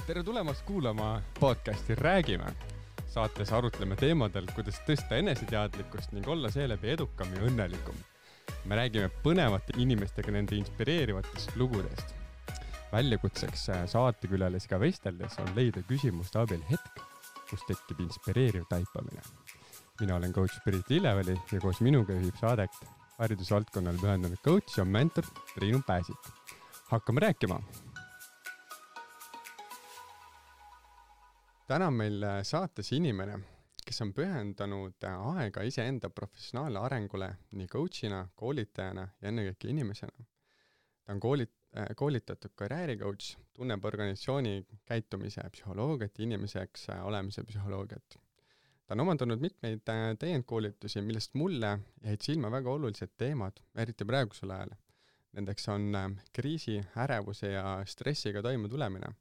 Tere tulemast kuulama podcasti Räägime. Saates arutleme teemadel, kuidas tõsta eneseteadlikkust ning olla seeläbi edukam ja õnnelikum. Me räägime põnevate inimestega nende inspireerivatest lugudest. Väljakutseks saatekülalisiga vesteldes on leida küsimuste abil hetk, kus tekib inspireeriv taipamine. Mina olen coach Priit Lilleväli ja koos minuga juhib saadet haridusvaldkonnale pühendunud coach ja mentor Triinu Pääsik. Hakkame rääkima! Täna on meil saates inimene, kes on pühendanud aega iseenda professionaalne arengule nii coachina, koolitajana ja ennekõike inimesena. Ta on koolitatud karjääricoach, tunneb organisatsiooni käitumise psühholoogiat ja inimeseks olemise psühholoogiat. Ta on omandanud mitmeid täiendkoolitusi, millest mulle jäid silma väga olulised teemad, eriti praegusel ajal. Nendeks on kriisi, ärevuse ja stressiga toime tulemine.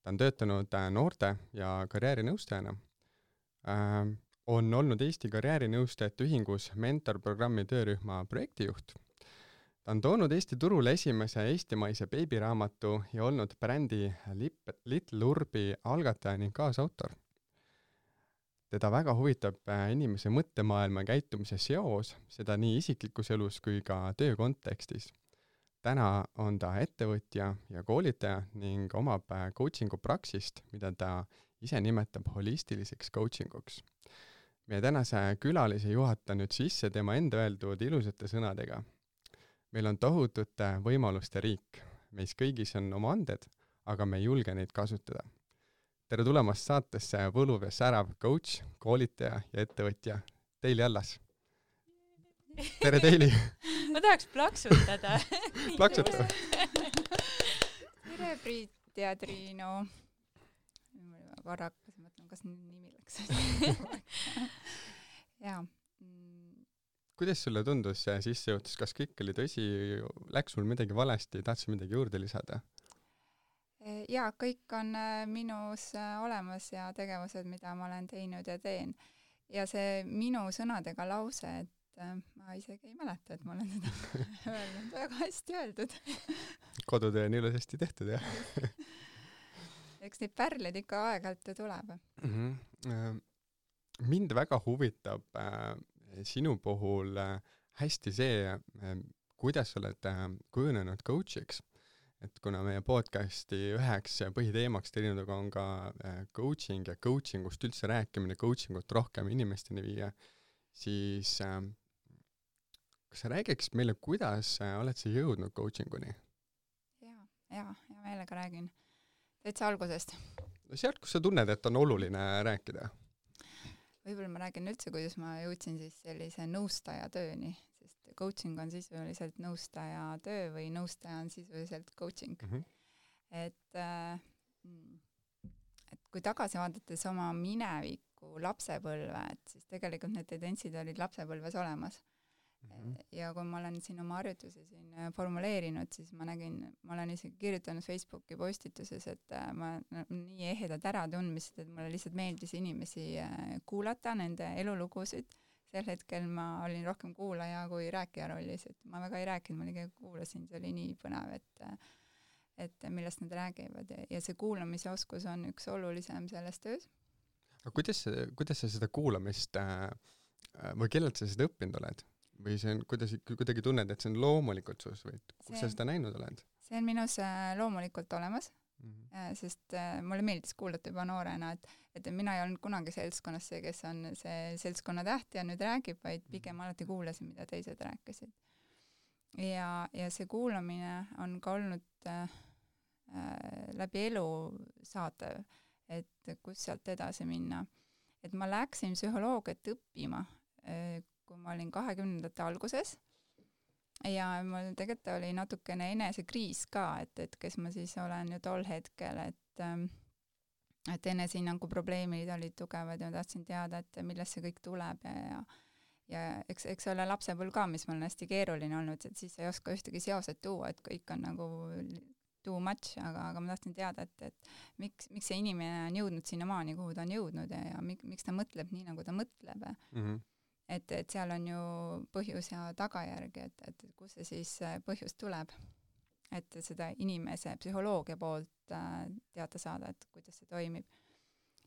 Ta on töötanud noorte ja karjäärinõustajana. On olnud Eesti karjäärinõustajate ühingus mentorprogrammi töörühma projektijuht. Ta on toonud Eesti turule esimese eestimaise beebiraamatu ja olnud brändi Little Urbi algataja ning kaasautor. Teda väga huvitab inimese mõttemaailma käitumise seos, seda nii isiklikus elus kui ka töö kontekstis. Täna on ta ettevõtja ja koolitaja ning omab coachingu praksist, mida ta ise nimetab holistiliseks coachinguks. Meie tänase külalise juhata nüüd sisse tema enda öeldud ilusate sõnadega. Meil on tohutute võimaluste riik. Meis kõigis on oma anded, aga me ei julge neid kasutada. Tere tulemast saatesse võluv ja särav coach, koolitaja ja ettevõtja Teili Allas. Tere Teili! Ma tahaks plaksutada. Plaksuta! Tere Priit ja Triinu. Korrakas mõtlen, kas nimi läks. Jaa. Kuidas sulle tundus see sissejuhatus? Kas kõik oli tõsi? Läks sul midagi valesti? Tahtsid midagi juurde lisada? Jaa, kõik on minus olemas ja tegevused, mida ma olen teinud ja teen. Ja see minu sõnadega lause, et ma isegi ei mäleta, et ma olen seda öelnud. Väga hästi öeldud. Kodutöö on ilusasti tehtud, jah? Eks neid pärleid ikka aeg-ajalt tuleb. Mind väga huvitab sinu puhul hästi see, kuidas sa oled kujunenud coachiks. Et kuna meie podcasti üheks põhiteemaks teinuga on ka coaching ja coachingust üldse rääkimine, coachingut rohkem inimesteni viia, siis kas sa räägiks meile, kuidas oled sa jõudnud coachinguni? Ja meelega räägin. Täitsa algusest. Sealt, kus sa tunned, et on oluline rääkida? Võib-olla ma räägin üldse, kuidas ma jõudsin siis sellise nõustaja tööni, sest coaching on sisuliselt nõustaja töö või nõustaja on sisuliselt coaching. Et kui tagasi vaadates oma mineviku lapsepõlve, et siis tegelikult need tendentsid olid lapsepõlves olemas. Ja kui ma olen siin oma harjutusi formuleerinud, siis ma olen isegi kirjutanud Facebooki postituses, et ma nii ehedad ära tundmised, et mulle lihtsalt meeldis inimesi kuulata, nende elulugusid. Sel hetkel ma olin rohkem kuulaja kui rääkija rollis, et ma väga ei rääkinud, ma liiga kuulasin, see oli nii põnev, et millest nad räägivad ja see kuulamise oskus on üks olulisem selles töös. Aga kuidas sa seda kuulamist või kellelt sa seda õppinud oled? Või see on, kuidagi tunned, et see on loomulikult sus või kus sa seda näinud oled? See on minus loomulikult olemas, sest mulle meeldis kuulata juba noorena, et mina ei olnud kunagi seltskonnas see, kes on see seltskonna täht ja nüüd räägib, vaid pigem alati kuulasin, mida teised rääkisid. Ja see kuulamine on ka olnud läbi elu saatev, et kus sealt edasi minna. Et ma läksin psühholoogiat õppima, kui ma olin 20. alguses ja mul tegelikult oli natukene enesekriis ka, et kes ma siis olen ju tol hetkel, et enesehinnangu probleemid olid tugevad ja ma tahtsin teada, et millest see kõik tuleb ja eks ole lapsepõlv ka, mis mul on hästi keeruline olnud, et siis ei oska ühtegi seoset tuua, et kõik on nagu too much, aga ma tahtsin teada, et miks see inimene on jõudnud sinna maani, kuhu ta on jõudnud ja miks ta mõtleb nii, nagu ta mõtleb. Et seal on ju põhjus ja tagajärg, et kus see siis põhjus tuleb. et seda inimese psühholoogia poolt teada saada, et kuidas see toimib.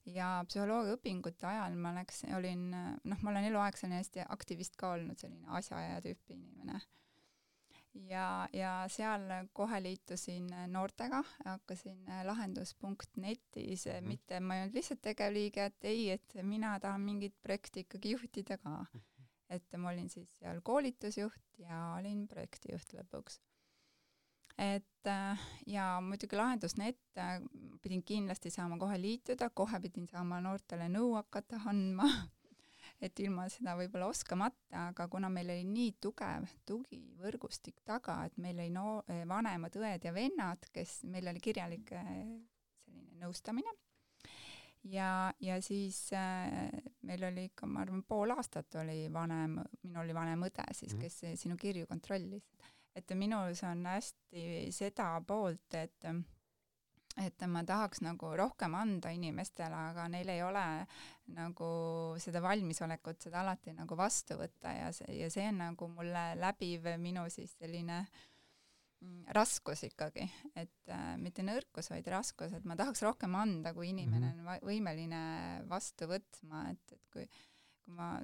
Ja psühholoogia õpingute ajal ma ma olen eluaeg selline hästi aktivist ka olnud, selline asjaaja tüüpi inimene. Ja seal kohe liitusin noortega, hakkasin lahendus.netis, mitte ma ei olnud lihtsalt tegevliige, et ei, et mina tahan mingit projekti ikkagi juhtida ka. Et ma olin siis seal koolitusjuht ja olin projektijuht lõpuks. Ja muidugi lahendus.net pidin kindlasti saama kohe liituda, kohe pidin saama noortele nõu hakata andma, et ilma seda võib-olla oskamata, aga kuna meil oli nii tugev tugivõrgustik taga, et meil oli vanemad õed ja vennad, meil oli kirjalik selline nõustamine ja siis meil oli ikka, ma arvan, pool aastat oli minul oli vanem õde siis, kes sinu kirju kontrollis. Et minus on hästi seda poolt, et ma tahaks nagu rohkem anda inimestele, aga neil ei ole nagu seda valmisolekut seda alati nagu vastu võtta ja see on nagu mulle läbiv minu siis selline raskus ikkagi, et mitte nõrkus, vaid raskus, et ma tahaks rohkem anda, kui inimene on võimeline vastu võtma, et kui ma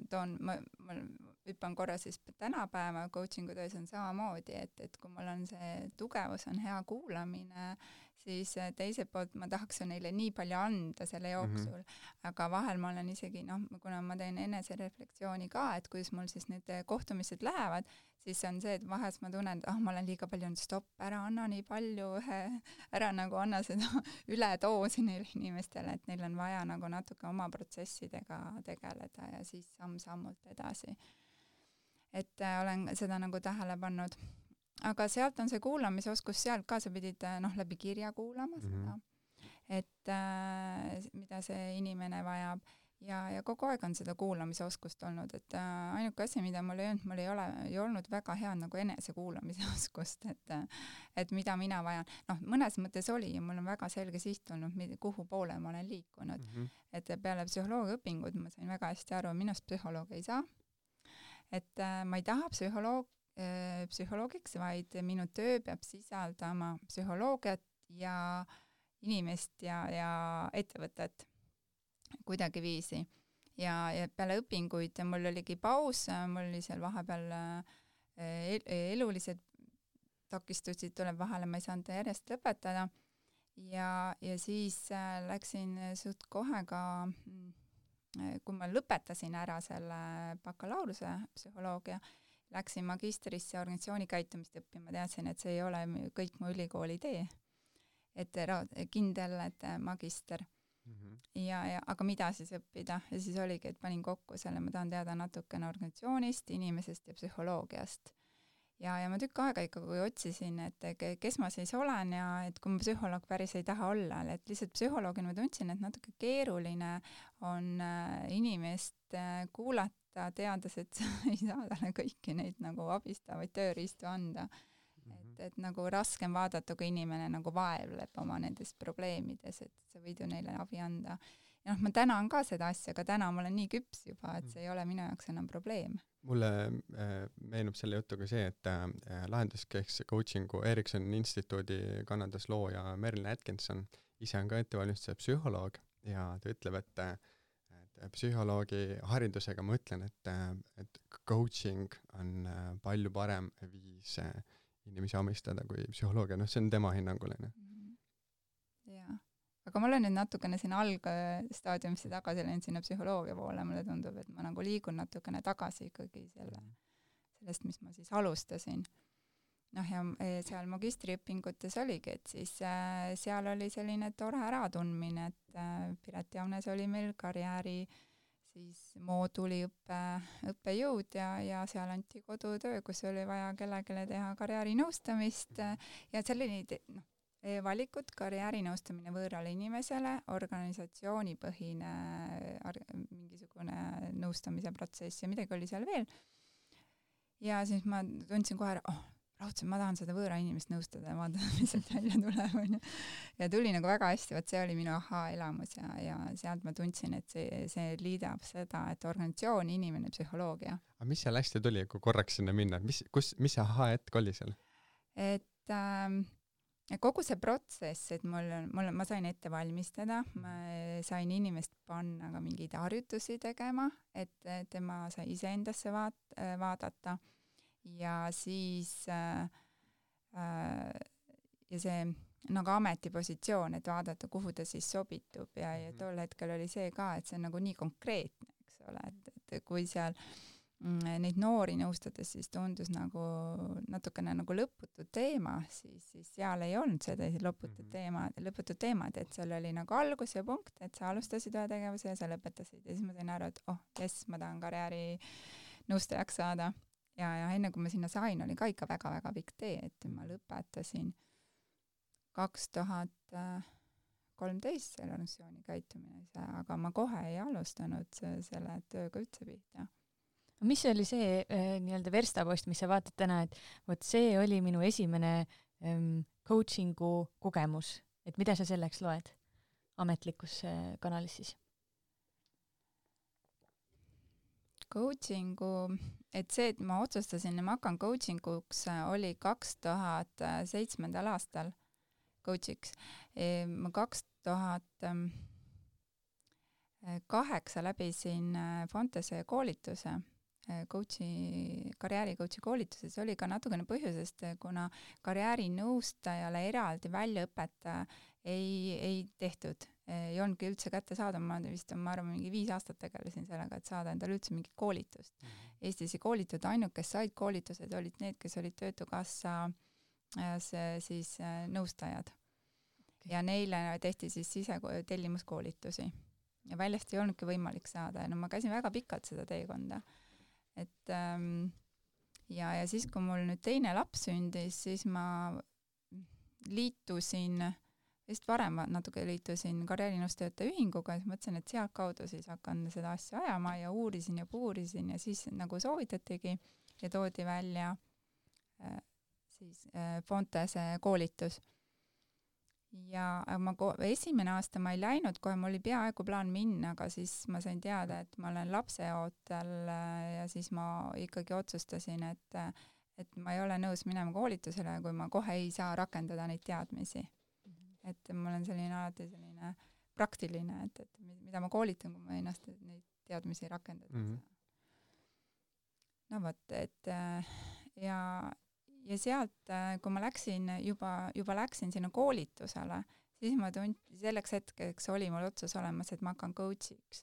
hüppan korra siis tänapäeva coachingu töös on samamoodi, et kui mul on see tugevus, on hea kuulamine, siis teiselt poolt ma tahaks neile nii palju anda selle jooksul, aga vahel ma olen isegi, kuna ma teen enesereflektsiooni ka, et kuidas mul siis need kohtumised lähevad, siis on see, et vahest ma tunnen, et ma olen liiga palju, stopp, ära anna nii palju, ära nagu anna seda üledoosi neile inimestele, et neil on vaja nagu natuke oma protsessidega tegeleda ja siis samm-sammult edasi. Et olen seda nagu tähele pannud. Aga sealt on see kuulamisoskus, sealt ka sa pidid läbi kirja kuulama seda, et mida see inimene vajab ja kogu aeg on seda kuulamisoskust olnud, et ainuke asi, mida mul ei olnud väga hea nagu enesekuulamise oskust, et mida mina vajan. Mõnes mõttes oli ja mul on väga selge siht olnud, kuhu poole ma olen liikunud. Et peale psühholoogia õpingud ma sain väga hästi aru, minust psühholoog ei saa. Et ma ei taha psühholoogiks, vaid minu töö peab sisaldama psühholoogiat ja inimest ja ettevõtet kuidagiviisi. Ja peale õpinguid mul oligi paus, mul oli seal vahepeal elulised takistusid tuleb vahele, ma ei saanud järjest lõpetada ja siis läksin suht kohe ka, kui ma lõpetasin ära selle bakalaureuse psühholoogia, läksin magistrisse organisatsiooni käitumist õppima, teadsin, et see ei ole kõik mu ülikooli tee. Et kindel, et magister. Aga mida siis õppida? Ja siis oligi, et panin kokku selle, ma tahan teada natukene organisatsioonist, inimesest ja psühholoogiast. Ja ma tükk aega ikkagi otsisin, et kes ma siis olen ja et kui ma psühholoog päris ei taha olla, et lihtsalt psühholoogina ma tundsin, et natuke keeruline on inimest kuulata, teades, et ei saa talle kõiki neid nagu abistavaid tööriistu anda. Et nagu raskem vaadata, kui inimene nagu vaevleb oma nendest probleemides, et sa võid ju neile abi anda. Ja ma tänan ka seda asja, aga täna ma olen nii küps juba, et see ei ole minu jaoks enam probleem. Mulle meenub selle jutuga see, et lahenduskeskse coachingu Ericssoni instituudi Kanadas looja Merlin Atkinson ise on ka ettevalmistaja psühholoog ja ta ütleb, et psühholoogi haridusega ma ütlen, et coaching on palju parem viis inimesi amistada kui psühholoogia, see on tema hinnaguline. Jaa, aga ma olen nüüd natukene siin algstaadiumisse tagasi läinud sinna psühholoogia poole, mulle tundub, et ma nagu liigun natukene tagasi ikkagi sellest, mis ma siis alustasin. Ja seal magistriõpingutes oligi, et siis seal oli selline tore äratundmine, et Piret Jaunes oli meil karjääri siis mooduli õppejõud ja seal anti kodutöö, kus oli vaja kellelegi teha karjäärinõustamist ja selline valikud, karjäärinõustamine võõrale inimesele, organisatsioonipõhine mingisugune nõustamise protsess ja midagi oli seal veel. Ja siis ma tundsin kohe, raudselt ma tahan seda võõra inimest nõustada ja vaadata, mis sealt välja tuleb. Ja tuli nagu väga hästi, see oli minu elamus ja sealt ma tundsin, et see liidab seda, et organisatsioon, inimene, psühholoogia. Aga mis seal hästi tuli, kui korraks sinna minna? Mis see hetk oli seal? Et kogu see protsess, et ma sain ette valmistada, ma sain inimest panna ka mingeid harjutusi tegema, et tema sai iseendasse vaadata ja siis ja see nagu ametipositsioon, et vaadata, kuhu ta siis sobitub ja tol hetkel oli see ka, et see on nagu nii konkreetne, eks ole, et kui seal neid noori nõustades siis tundus nagu natukene nagu lõputu teema, siis seal ei olnud seda lõputut teemad, et seal oli nagu algus ja punkt, et sa alustasid ühe tegevuse ja sa lõpetasid ja siis ma sain aru, et jess, ma tahan karjääri nõustajaks saada ja enne kui ma sinna sain, oli ka ikka väga-väga pikk tee, et ma lõpetasin 2013 selle organisatsiooni käitumise, aga ma kohe ei alustanud selle tööga üldse pihta. Mis oli see nii-öelda verstapost, mis sa vaatad täna, et vot see oli minu esimene coachingu kogemus, et mida sa selleks loed ametlikus kanalis siis? Coachingu, et see, et ma otsustasin, et ma hakkan coachinguks, oli 2007. aastal coachiks. Ma 2008 läbisin Fontese koolituse, karjääricoachi koolituse, see oli ka natukene põhjusest, kuna karjäärinõustajale eraldi väljaõpet ei tehtud, ei olnudki üldse kätte saada, ma arvan, mingi 5 aastat tegelesin sellega, et saada endale üldse mingit koolitust. Eestis ei koolitud, ainult kes said koolitused, olid need, kes olid Töötukassa siis nõustajad. Ja neile tehti siis sisetellimuskoolitusi. Ja väljast ei olnudki võimalik saada. Ja ma käisin väga pikalt seda teekonda. Et, ja siis, kui mul nüüd teine laps sündis, siis ma liitusin, vist varem natuke liitusin karjäärinõustajate ühinguga, siis mõtlesin, et sealt kaudu siis hakkan seda asja ajama ja uurisin ja siis nagu soovitatigi ja toodi välja siis Fontese koolitus. Ja esimene aasta ma ei läinud, kohe mul oli peaaegu plaan minna, aga siis ma sain teada, et ma olen lapseootel ja siis ma ikkagi otsustasin, et ma ei ole nõus minema koolitusele, kui ma kohe ei saa rakendada neid teadmisi. Et mul on alati selline praktiline, et mida ma koolitan, kui ma ennast neid teadmisi rakendada. No vot, et ja sealt, kui ma läksin, juba läksin sinna koolitusele, siis ma selleks hetkeks oli mul otsus olemas, et ma hakkan coachiks.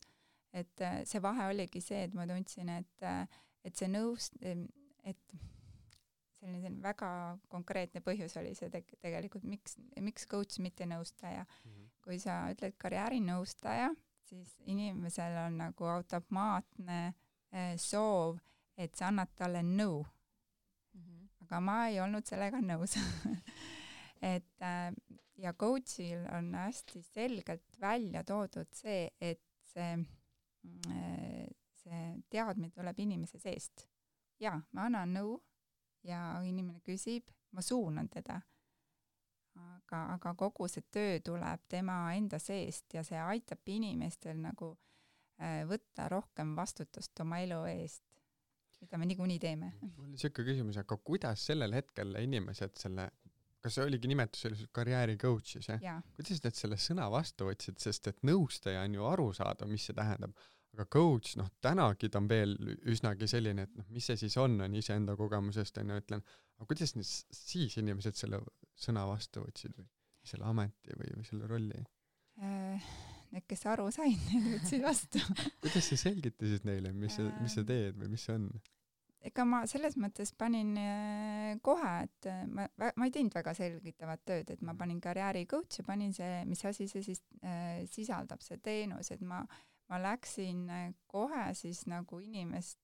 Et see vahe oligi see, et ma tundsin, et see et selline väga konkreetne põhjus oli see tegelikult, miks coach, mitte nõustaja. Kui sa ütled karjäärinõustaja, siis inimesel on nagu automaatne soov, et sa annad talle nõu. Aga ma ei olnud sellega nõus. Ja coachil on hästi selgelt välja toodud see, et see teadmine tuleb inimese seest. Ja, ma annan nõu ja inimene küsib, ma suunan teda. Aga kogu see töö tuleb tema enda seest ja see aitab inimestel nagu võtta rohkem vastutust oma elu eest. Mida me niikuinii teeme. Mul oli siuke küsimus, aga kuidas sellel hetkel inimesed kas see oligi nimetus sellised karjääri coach'is, kuidas need selle sõna vastu võtsid, sest et nõustaja on ju aru saada, mis see tähendab, aga coach, tänagi ta on veel üsnagi selline, et mis see siis on iseenda kogemusest, ütlen, aga kuidas siis inimesed selle sõna vastu võtsid või selle ameti või selle rolli? Need, kes aru said, need võtsid vastu. Kuidas sa selgitasid neile, mis sa teed või mis see on? Ega ma selles mõttes panin kohe, et ma ei teinud väga selgitavat tööd, et ma panin karjääri coach ja panin see, mis asi see siis sisaldab, see teenus, et ma läksin kohe siis nagu inimest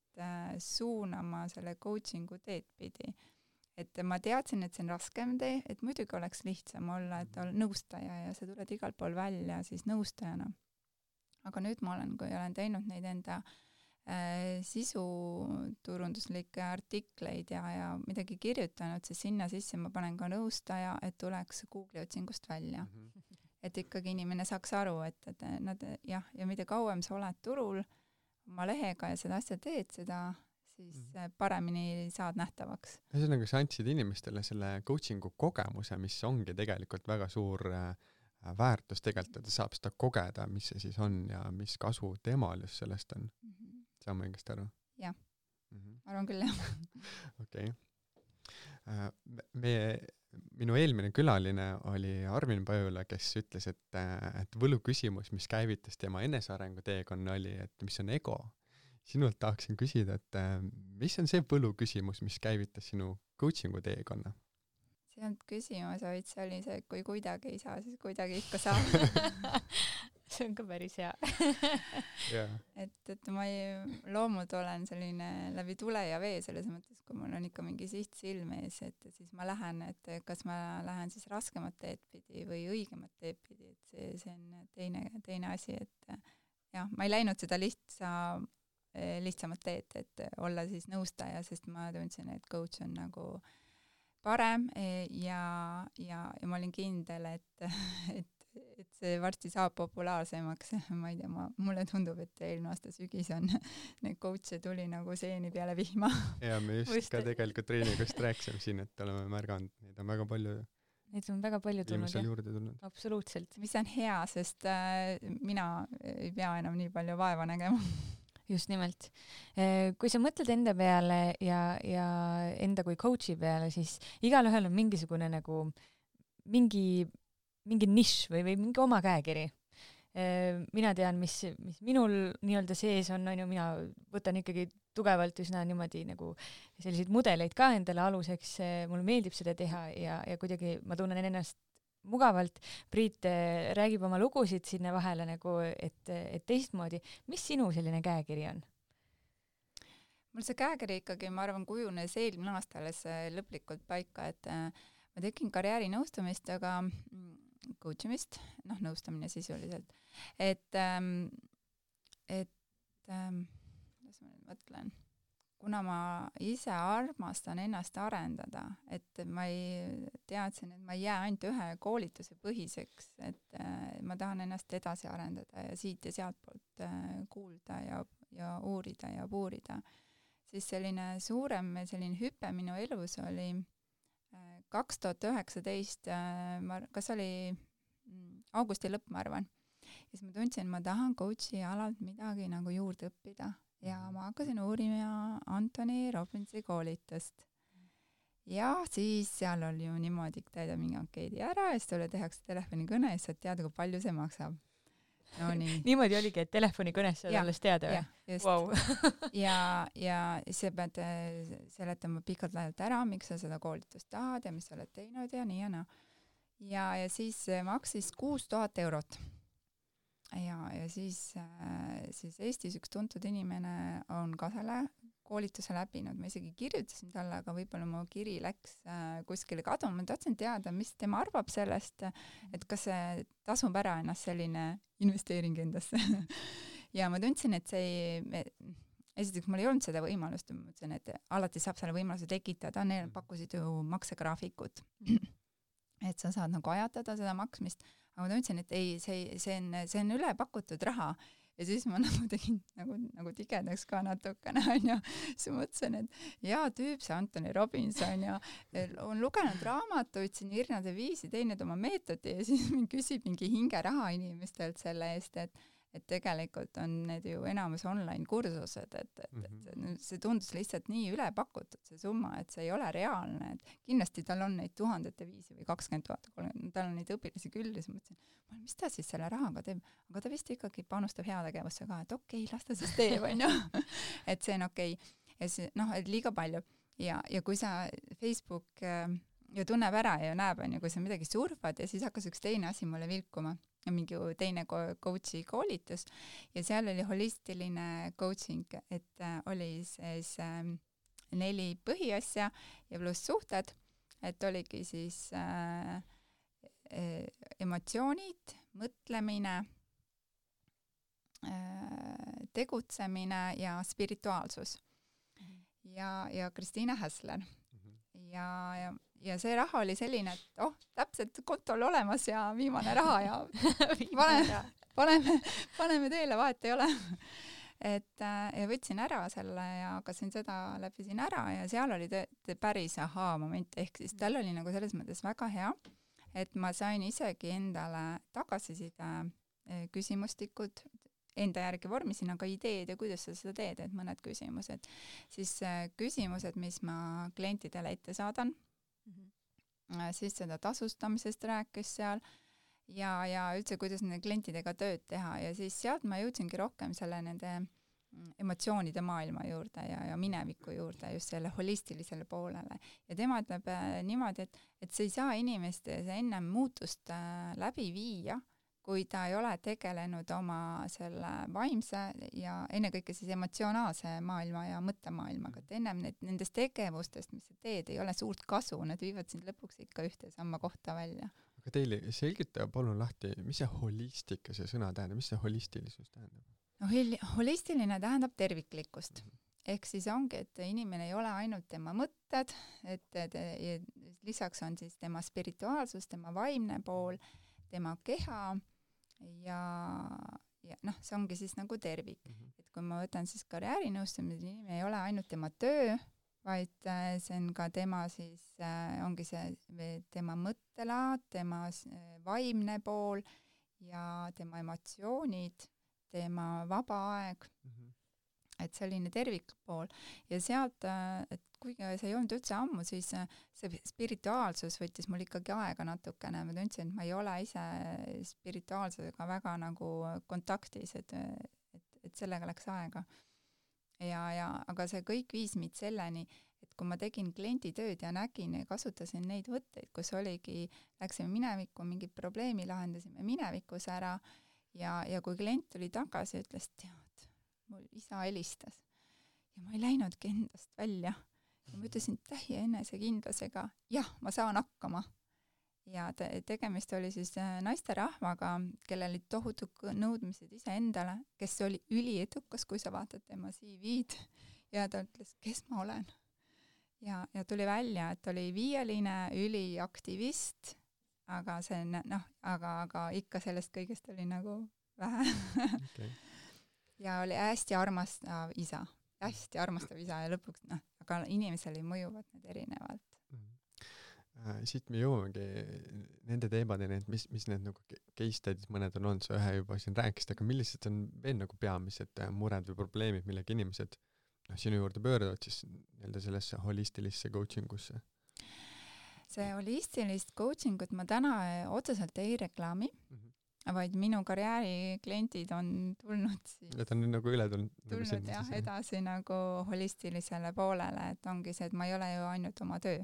suunama selle coachingu teed pidi. Et ma teadsin, et see on raskem tee, et muidugi oleks lihtsam olla, et olla nõustaja ja sa tuled igal pool välja siis nõustajana. Aga nüüd kui olen teinud neid enda sisuturunduslikke artikleid ja midagi kirjutanud, siis sinna sisse ma panen ka nõustaja, et tuleks Google'i otsingust välja. Et ikkagi inimene saaks aru, et nad ja mida kauem sa oled turul oma lehega ja seda asja teed, siis paremini saad nähtavaks. Ühesõnaga, sa andsid inimestele selle coachingu kogemuse, mis ongi tegelikult väga suur väärtus tegelikult, et ta saab seda kogeda, mis see siis on ja mis kasu temal just sellest on. Saan ma õigesti aru? Jah, arvan küll, jah. Okei. Minu eelmine külaline oli Armin Pajula, kes ütles, et võluküsimus, mis käivitas tema enesearengu teekonna oli, et mis on ego. Sinult tahaksin küsida, et mis on see võluküsimus, mis käivitas sinu coachingu teekonna? See on küsimus, vaid see oli see, et kui kuidagi ei saa, siis kuidagi ikka saab. See on ka päris hea. Yeah. Et ma loomult olen selline läbi tule ja vee selles mõttes, kui mul on ikka mingi siht silme ees, et siis ma lähen, et kas ma lähen siis raskemat teed pidi või õigemat teed pidi, et see on teine asi, et jah, ma ei läinud seda lihtsamat teed, et olla siis nõustaja, sest ma tundsin, et coach on nagu parem ja ma olin kindel, et see varsti saab populaarsemaks. Ma ei tea, mulle tundub, et eelmine aasta sügis on neid coach'e tuli nagu seeni peale vihma. Ja me just ka tegelikult treeningust rääkisime siin, et oleme märganud, neid on väga palju. Neid on väga palju tulnud. Absoluutselt. Mis on hea, sest mina ei pea enam nii palju vaeva nägema. Just nimelt. Kui sa mõtled enda peale ja enda kui coach'i peale, siis igalühel on mingisugune nagu mingi nišš või mingi oma käekiri. Mina tean, mis minul nii-öelda sees on, mina võtan ikkagi tugevalt üsna niimoodi nagu selliseid mudeleid ka endale aluseks, mulle meeldib seda teha ja kuidagi ma tunnen ennast mugavalt. Priit räägib oma lugusid sinna vahele nagu, et teistmoodi. Mis sinu selline käekiri on? Mul see käekiri ikkagi, ma arvan, kujunes eelmine aasta alles lõplikult paika, et ma tegin karjääri nõustamist, aga coachimist, nõustamine sisuliselt. Kuidas ma nüüd mõtlen? Kuna ma ise armastan ennast arendada, et ma teadsin, et ma ei jää ainult ühe koolituse põhiseks, et ma tahan ennast edasi arendada ja siit ja sealt poolt kuulda ja uurida ja puurida, siis selline suurem hüpe minu elus oli 2019, kas oli augusti lõpp, ma arvan. Ja siis ma tundsin, ma tahan coach'i alalt midagi nagu juurde õppida. Ja ma hakkasin uurima Anthony Robbinsi koolitust. Ja siis seal oli ju niimoodi, täida mingi ankeedi ära ja siis sulle tehakse telefonikõne ja saad teada, kui palju see maksab. No, nii. Niimoodi oligi, et telefonikõnes saad alles teada või? Just. Wow. ja sa pead seletama pikalt laialt ära, miks sa seda koolitust tahad ja mis sa oled teinud ja nii ja naa. Ja siis maksis 6,000 eurot. Ja siis Eestis üks tuntud inimene on ka selle koolituse läbinud. Ma isegi kirjutasin talle, aga võib-olla mu kiri läks kuskile kaduma. Ma tahtsin teada, mis tema arvab sellest, et kas see tasub ära ennast selline investeering endasse. Ja ma tundsin, et esiteks mul ei olnud seda võimalust. Ma mõtlesin, et alati saab selle võimaluse tekitada. Neil pakkusid ju maksegraafikut. Et sa saad nagu ajatada seda maksmist. Aga ma tundsin, et ei, see on üle pakutud raha. Ja siis ma nagu tegin nagu tigedaks ka natukene, ja siis mõtlesin, et tüüp, see Anthony Robbins on lugenud raamatuid siin irnade viisi, teinud oma meetodi ja siis küsib mingi hingeraha inimestelt selle eest, et tegelikult on need ju enamus online kursused, et see tundus lihtsalt nii üle pakutud, see summa, et see ei ole reaalne, et kindlasti tal on neid 1000 viisi või 20 000, tal on neid õpilasi küll ja siis mõtlesin, mis ta siis selle rahaga teeb, aga ta vist ikkagi panustab heategevusse ka, et okei, las ta siis teeb, et see on okei. Ja see, et liiga palju ja kui sa Facebook ju tunneb ära ja näeb, kui sa midagi surfad ja siis hakkas üks teine asi mulle vilkuma, mingi teine coach'i koolitus ja seal oli holistiline coaching, et oli siis 4 põhiasja ja pluss suhted, et oligi siis emotsioonid, mõtlemine, tegutsemine ja spirituaalsus. Ja Kristiina Häsler. Ja see raha oli selline, et täpselt kontol olemas ja viimane raha ja paneme teele, vahet ei ole. ja võtsin ära selle ja hakkasin seda läbisin ära ja seal oli päris ahaa-moment, ehk siis tal oli nagu selles mõttes väga hea, et ma sain isegi endale tagasiside küsimustikud, enda järgi vormisin, aga ideed ja kuidas sa seda teed, et mõned küsimused. Siis küsimused, mis ma klientidele ette saadan, siis seda tasustamisest rääkis seal ja üldse, kuidas nende klientidega tööd teha ja siis sealt ma jõudsingi rohkem selle nende emotsioonide maailma juurde ja mineviku juurde, just selle holistilisele poolele. Ja tema ütleb niimoodi, et sa ei saa inimestes ennem muutust läbi viia, kui ta ei ole tegelenud oma selle vaimse ja ennekõike siis emotsionaalse maailma ja mõttemaailmaga, et ennem nendest tegevustest, mis sa teed, ei ole suurt kasu, need viivad sind lõpuks ikka ühte samma kohta välja. Aga teile selgita palun lahti, mis see holistika, see sõna tähendab, mis see holistilisus tähendab? No, holistiline tähendab terviklikkust. Ehk siis ongi, et inimene ei ole ainult tema mõtted, et lisaks on siis tema spirituaalsus, tema vaimne pool, tema keha ja noh, see ongi siis nagu tervik. Et kui ma võtan siis karjäärinõustamise, inimene ei ole ainult tema töö, vaid see on ka tema siis, ongi see tema mõttelaad, tema vaimne pool ja tema emotsioonid, tema vaba aeg, et selline tervikpool. Ja sealt, et kuigi see ei olnud üldse ammu, siis see spirituaalsus võttis mul ikkagi aega natukene. Ma tundsin, et ma ei ole ise spirituaalsusega väga nagu kontaktis, et sellega läks aega. Aga see kõik viis meid selleni, et kui ma tegin klienditööd ja nägin ja kasutasin neid võtteid, kus oligi, läksime minevikku, mingid probleemi lahendasime minevikus ära ja kui klient tuli tagasi ja ütles, tead, mul isa helistas ja ma ei läinudki endast välja. Ja ma ütlesin täie enesekindlusega, jah, ma saan hakkama. Ja tegemist oli siis naisterahvaga, kellel olid tohutud nõudmised iseendale, kes oli üliedukas, kui sa vaatad tema CV-d ja ta ütles, kes ma olen. Ja tuli välja, et oli viieline üliaktivist, aga see aga ikka sellest kõigest oli nagu vähe. Okay. Ja oli hästi armastav isa ja lõpuks aga inimesele mõjuvad need erinevalt. Siit me jõuamegi nende teemadeni, et mis need nagu case studies mõned on olnud, sa ühe juba siin rääkisid, aga millised on veel nagu peamised mured või probleemid, millega inimesed sinu juurde pöörduvad siis nii-öelda sellesse holistilisse coachingusse? See holistilist coachingut ma täna otseselt ei reklaami, vaid minu karjääriklientid on tulnud siis et on nagu üle tulnud jah, edasi nagu holistilisele poolele, et ongi see, et ma ei ole ju ainult oma töö.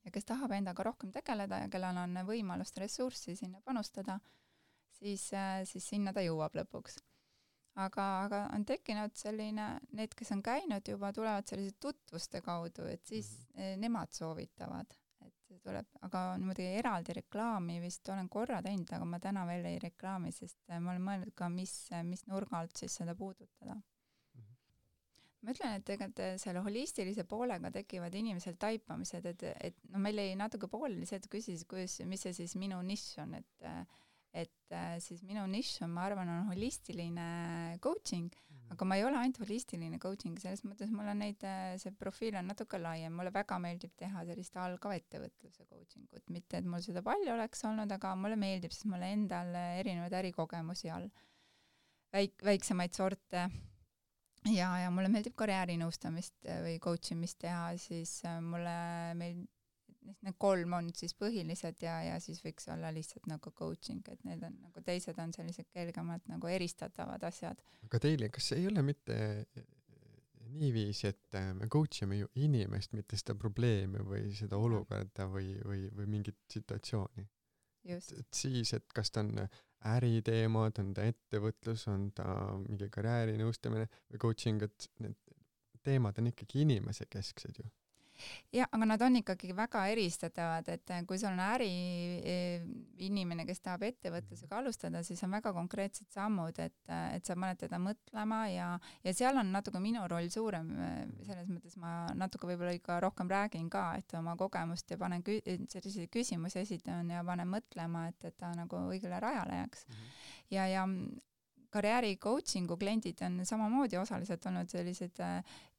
Ja kes tahab endaga rohkem tegeleda ja kellel on võimalust ressurssi sinna panustada, siis sinna ta jõuab lõpuks. Aga on tekkinud selline, need, kes on käinud juba, tulevad sellise tutvuste kaudu, et siis nemad soovitavad. Et tuleb, aga niimoodi eraldi reklaami vist olen korra teinud, aga ma täna veel ei reklaami, sest ma olen mõelnud ka, mis nurga alt siis seda puudutada. Ma ütlen, et tegelikult selle holistilise poolega tekivad inimesel taipamised, et meil ei natuke pooleli see, et küsis, mis see siis minu nišš on, et siis minu nišš on, ma arvan, on holistiline coaching, aga ma ei ole ainult holistiline coaching, selles mõttes mul on see profiil on natuke laiem, mulle väga meeldib teha sellist algava ettevõtluse coachingut, mitte et mul seda palju oleks olnud, aga mulle meeldib, sest mulle endal erinevaid ärikogemusi all, väiksemaid sorte, ja mulle meeldib karjäärinõustamist või coachimist teha, siis meil need 3 on siis põhilised ja siis võiks olla lihtsalt nagu coaching, et need on nagu teised on sellised kergemalt nagu eristatavad asjad. Aga teile, kas ei ole mitte niiviisi, et me coachime ju inimest, mitte seda probleemi või seda olukorda või mingit situatsiooni? Just. Et siis, et kas ta on äriteemad, on ta ettevõtlus, on ta mingi karjäärinõustamine või coaching, et need teemad on ikkagi inimese kesksed ju. Ja, aga nad on ikkagi väga eristatavad, et kui sul on inimene, kes tahab ettevõtlusega alustada, siis on väga konkreetsed sammud, et sa paned teda mõtlema ja seal on natuke minu roll suurem, selles mõttes ma natuke võib-olla ikka rohkem räägin ka, et oma kogemust ja panen selliseid küsimusi esitan ja panen mõtlema, et ta nagu õigele rajale jääks. Ja karjääri coachingu kliendid on samamoodi osaliselt olnud sellised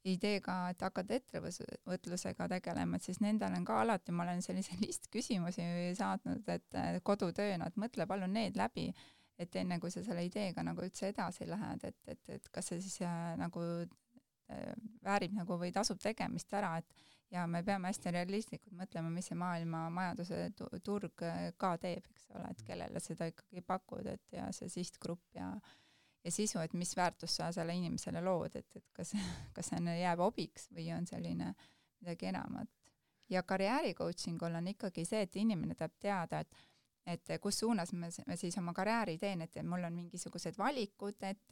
ideega, et hakata ettevõtlusega tegelema, et siis nendel on ka alati, ma olen sellise listküsimusi saatnud, et kodutööna, et mõtle palun need läbi, et enne kui sa selle ideega nagu üldse edasi lähed, et kas see siis nagu väärib nagu või tasub tegemist ära, et ja me peame hästi realistlikult mõtlema, mis see maailma majanduse turg ka teeb, eks ole, et kellele seda ikkagi pakud, et ja see sihtgrupp ja sisu, et mis väärtust sa selle inimesele lood, et kas see jääb hobiks või on selline midagi enamat. Ja karjääri coachingul on ikkagi see, et inimene tahab teada, et kus suunas me siis oma karjääri teen, et mul on mingisugused valikud, et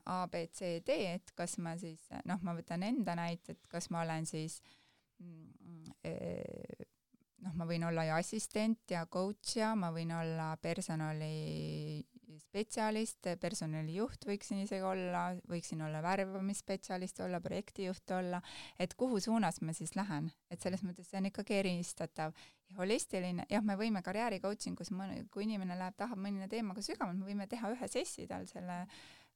A, B, C, D, et kas ma siis, ma võtan enda näite, et kas ma olen siis, ma võin olla ju assistent ja coach ja ma võin olla personalispetsialist, personalijuht võiksin isegi olla, võiksin olla värbamisspetsialist olla, projektijuht olla, et kuhu suunas ma siis lähen, et selles mõttes see on ikkagi eristatav. Ja holistiline, jah, me võime karjääri coachingus, kui inimene tahab mõnina teemaga sügavalt, me võime teha ühe sessi tal selle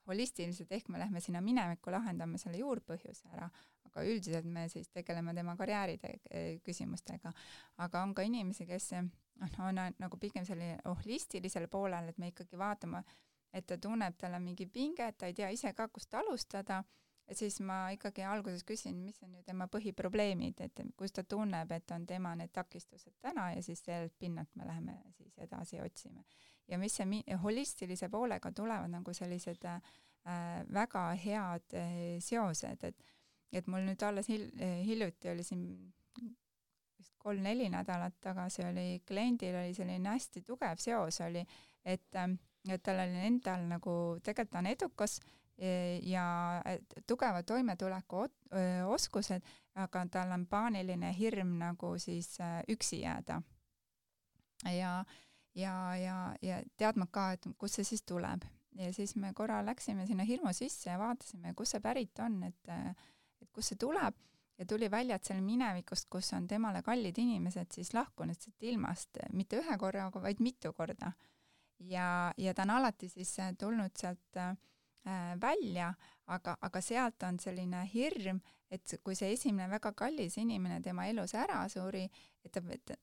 holistiliselt, ehk me lähme sinna minevikku, lahendame selle juurpõhjuse ära, aga üldiselt me siis tegeleme tema karjääri küsimustega. Aga on ka inimesi, kes on nagu pigem selline holistilisel poolel, et me ikkagi vaatame, et ta tunneb, tal on mingi pinge, et ta ei tea ise ka, kust alustada, et siis ma ikkagi alguses küsin, mis on ju tema põhiprobleemid, et kus ta tunneb, et on tema need takistused täna ja siis sellelt pinnalt me läheme siis edasi otsime. Ja mis see holistilise poolega tulevad nagu sellised väga head seosed, et mul nüüd alles hiljuti oli siin 3-4 nädalat tagasi oli kliendil oli selline hästi tugev seos oli, et tal oli endal nagu tegelikult on edukas ja tugeva toimetuleku oskused, aga tal on paaniline hirm nagu siis üksi jääda. Ja teadma ka, et kus see siis tuleb. Ja siis me korra läksime sinna hirmu sisse ja vaatasime, kus see pärit on, et kus see tuleb. Ja tuli välja, et seal minevikust, kus on temale kallid inimesed, siis lahkunud siit ilmast, mitte ühe korra, vaid mitu korda. Ja ta on alati siis tulnud sealt välja, aga sealt on selline hirm, et kui see esimene väga kallis inimene tema elus ära suri, et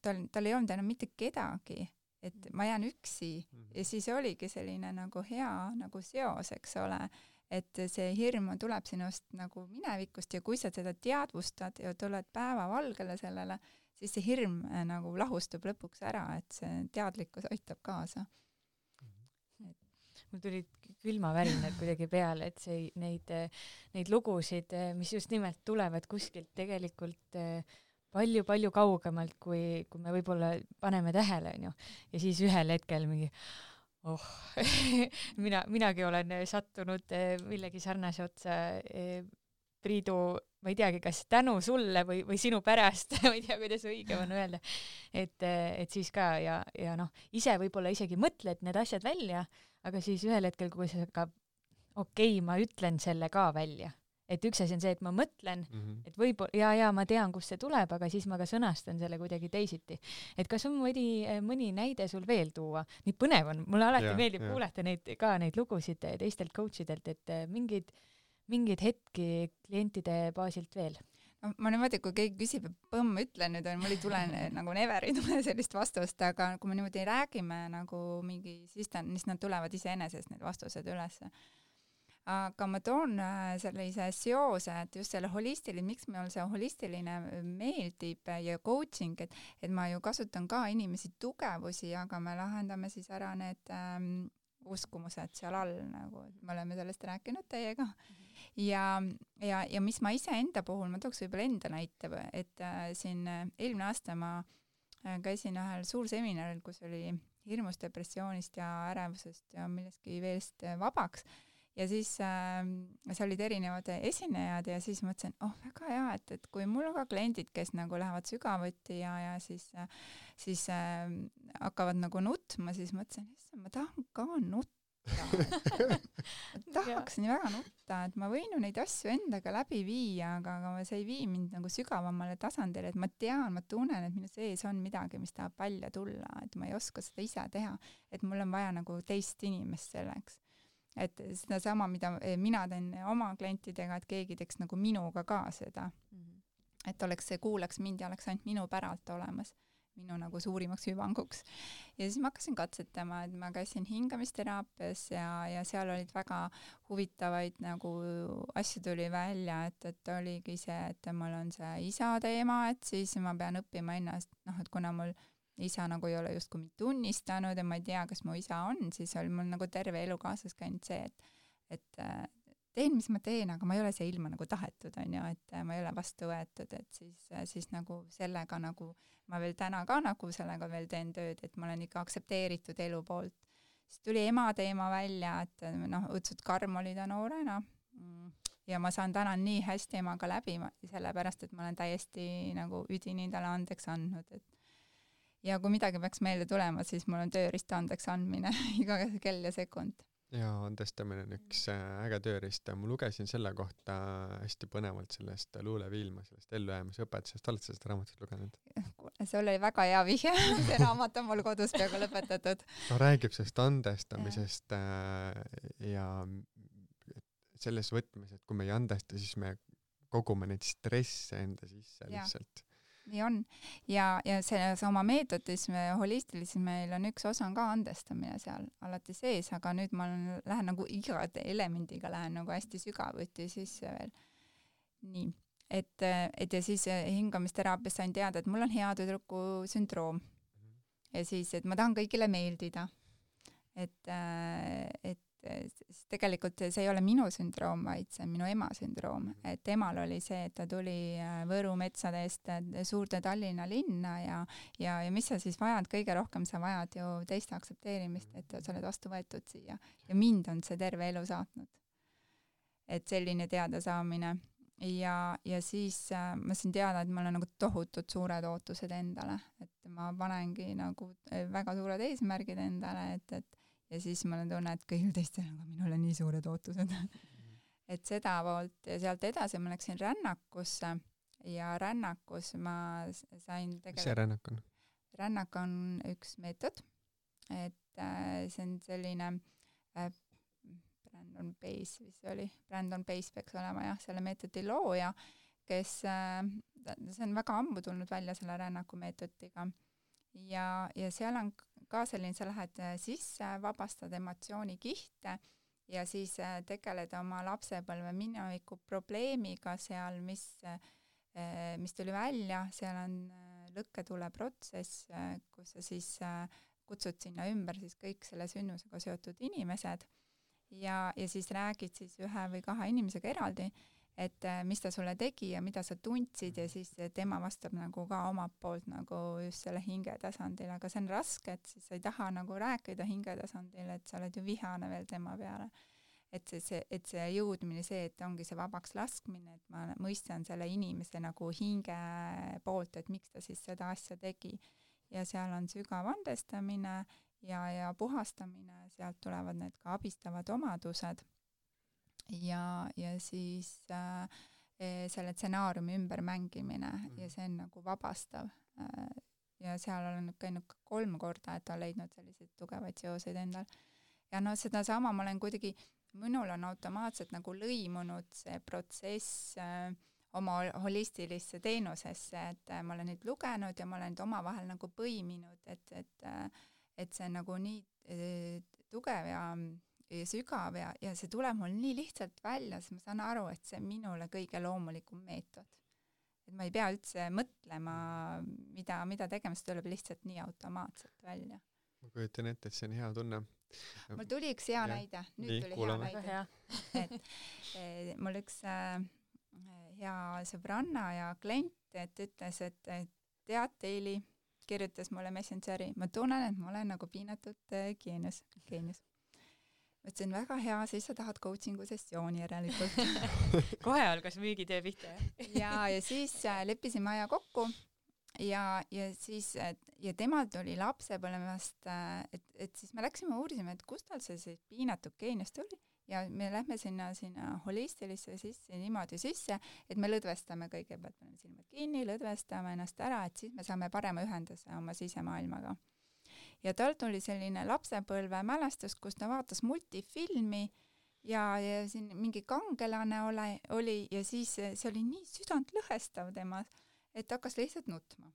tal ei olnud enam mitte kedagi, et ma jään üksi ja siis oligi selline nagu hea nagu seos, eks ole, et see hirm tuleb sinust nagu minevikust ja kui sa seda teadvustad ja tuled päevavalgele sellele, siis see hirm nagu lahustub lõpuks ära, et see teadlikkus aitab kaasa. Mul tulid külmavärinad kuidagi peale, et neid lugusid, mis just nimelt tulevad kuskilt tegelikult palju kaugemalt, kui me võib-olla paneme tähele, on ju. Ja siis ühel hetkel mingi, minagi olen sattunud millegi sarnase otsa, Priidu, ma ei teagi, kas tänu sulle või sinu pärast, ma ei tea, kuidas õige on öelda, et siis ka ja ise võib-olla isegi mõtled need asjad välja, aga siis ühel hetkel, kui sa ka, ma ütlen selle ka välja. Et üks asi on see, et ma mõtlen, et võib-olla, ma tean, kust see tuleb, aga siis ma ka sõnastan selle kuidagi teisiti. Et kas on mõni näide sul veel tuua? Nii põnev on, mulle alati meeldib kuulata neid lugusid teistelt coachidelt, et mingeid hetki klientide baasilt veel. No, ma niimoodi, kui keegi küsib, ütlen nüüd, mul ei tule nagu never ei tule sellist vastust, aga kui me niimoodi räägime nagu mingi, siis nad tulevad iseenesest need vastused üles. Aga ma toon sellise seose, et just selle holistiline, miks meil see holistiline meeldib ja coaching, et ma ju kasutan ka inimesi tugevusi, aga me lahendame siis ära need uskumused seal all, nagu me oleme sellest rääkinud teiega. Ja mis ma ise enda puhul, ma tooks võib-olla enda näite, et siin eelmine aasta ma käisin ühel suur seminaril, kus oli hirmust, depressioonist ja ärevusest ja millestki veelst vabaks. Ja siis see olid erinevad esinejad ja siis mõtlesin, väga hea, et kui mul on ka kliendid, kes nagu lähevad sügavuti ja siis hakkavad nagu nutma, siis mõtlesin, ma tahan ka nutta. Ma tahaks nii väga nutta, et ma võin ju neid asju endaga läbi viia, aga see ei vii mind nagu sügavamale tasandile, et ma tean, ma tunnen, et minu sees on midagi, mis tahab välja tulla, et ma ei oska seda ise teha, et mul on vaja nagu teist inimest selleks. et seda sama, mida mina teen oma klientidega, et keegi teeks nagu minuga ka seda. Et kuulaks mind ja oleks ainult minu päralt olemas, minu nagu suurimaks hüvanguks. Ja siis ma hakkasin katsetama, et ma käisin hingamisteraapias ja seal olid väga huvitavaid nagu asju tuli välja, et oligi see, et mul on see isa teema, et siis ma pean õppima ennast, et kuna mul isa nagu ei ole justkui mind tunnistanud ja ma ei tea, kas mu isa on, siis oli mul nagu terve elu kaasas käinud see, et teen, mis ma teen, aga ma ei ole see ilma nagu tahetud, on ju, et ma ei ole vastu võetud, et siis nagu sellega nagu ma veel täna ka nagu sellega veel teen tööd, et ma olen ikka aktsepteeritud elu poolt. Siis tuli ema teema välja, et õudsed karm oli ta noorena ja ma saan täna nii hästi emaga läbi, sellepärast, et ma olen täiesti nagu üdini talle andeks andnud, et ja kui midagi peaks meelde tulema, siis mul on tööriist andeks andmine iga kell ja sekund. Ja andestamine on üks äge tööriist. Ma lugesin selle kohta hästi põnevalt sellest Luule Viilma, sellest ellujäämisõpetusest. Oled sa seda raamatut lugenud? See oli väga hea vihje. See raamat on mul kodus peaaegu lõpetatud. Ta räägib sellest andestamisest ja selles võtmes, et kui me ei andesta, siis me kogume neid stresse enda sisse lihtsalt. Nii on. Ja selles oma meetodis, holistilises meil on üks osa on ka andestamine seal alati sees, aga nüüd ma lähen nagu iga elemendiga lähen nagu hästi sügavuti sisse veel. Nii. Et ja siis hingamisteraapias sain teada, et mul on hea tüdruku sündroom. Ja siis, et ma tahan kõigile meeldida. Et tegelikult see ei ole minu sündroom, vaid see on minu ema sündroom. Et temal oli see, et ta tuli Võru metsade eest suurde Tallinna linna ja mis sa siis vajad, kõige rohkem sa vajad ju teiste aktsepteerimist, et sa oled vastu võetud siia. Ja mind on see terve elu saatnud. Et selline teadasaamine. Ja siis ma sain teada, et mul on nagu tohutud suured ootused endale. Et ma panengi nagu väga suured eesmärgid endale, ja siis ma olen tunne, et kõigil teistel on minul on nii suured ootused. Et seda poolt ja sealt edasi ma läksin rännakusse ja rännakus ma sain tegelikult... Mis see rännak on? Rännak on üks meetod, et see on selline Brandon Pace vist oli. Brandon Pace peaks olema jah, selle meetodi looja, kes see on väga ammu tulnud välja selle rännaku meetodiga. Ja seal on ka selline, sa lähed sisse, vabastad emotsioonikihte ja siis tegeled oma lapsepõlve mineviku probleemiga seal, mis tuli välja, seal on lõkketule protsess, kus sa siis kutsud sinna ümber siis kõik selle sünnusega seotud inimesed ja siis räägid siis ühe või kahe inimesega eraldi, et mis ta sulle tegi ja mida sa tundsid ja siis tema vastab nagu ka omalt poolt nagu just selle hinge tasandil, aga see on raske, et siis sa ei taha nagu rääkida hinge tasandil, et sa oled ju vihane veel tema peale. Et see jõudmine, see, et ongi see vabaks laskmine, et ma mõistan selle inimese nagu hinge poolt, et miks ta siis seda asja tegi. Ja seal on sügav andestamine ja puhastamine, sealt tulevad need ka abistavad omadused. Ja siis selle stsenaariumi ümber mängimine ja see on nagu vabastav. Ja seal olen käinud 3 korda, et on leidnud selliseid tugevaid seoseid endal. Ja seda sama ma olen kuidagi, minul on automaatselt nagu lõimunud see protsess oma holistilisse teenusesse, et ma olen neid lugenud ja ma olen neid omavahel nagu põiminud, et see on nagu nii tugev ja sügav ja see tuleb mul nii lihtsalt välja, siis ma saan aru, et see on minule kõige loomulikum meetod. Et ma ei pea üldse mõtlema, mida tegema, see tuleb lihtsalt nii automaatselt välja. Ma kujutan ette, et see on hea tunne. Mul tuli üks hea näide. Nüüd tuli hea näide. Et mul üks hea sõbranna ja klient, et ütles, et tead, Teili kirjutas mulle Messengeri, ma tunnen, et ma olen nagu piinatud geenius. Mõtlesin, väga hea, siis sa tahad coachingu sessiooni järelikult. Kohe algas müügitöö pihta. Ja siis leppisime aja kokku ja siis ja temal tuli lapsepõlvest, et siis me läksime uurisime, et kust tal see piinatud geenius tuli ja me lähme sinna holistilisse sisse, niimoodi sisse, et me lõdvestame kõigepealt, paneme silmad kinni, lõdvestame ennast ära, et siis me saame parema ühenduse oma sisemaailmaga. ja tal tuli selline lapsepõlve mälestus, kus ta vaatas multifilmi ja siin mingi kangelane oli ja siis see oli nii südantlõhestav temas, et hakkas lihtsalt nutma.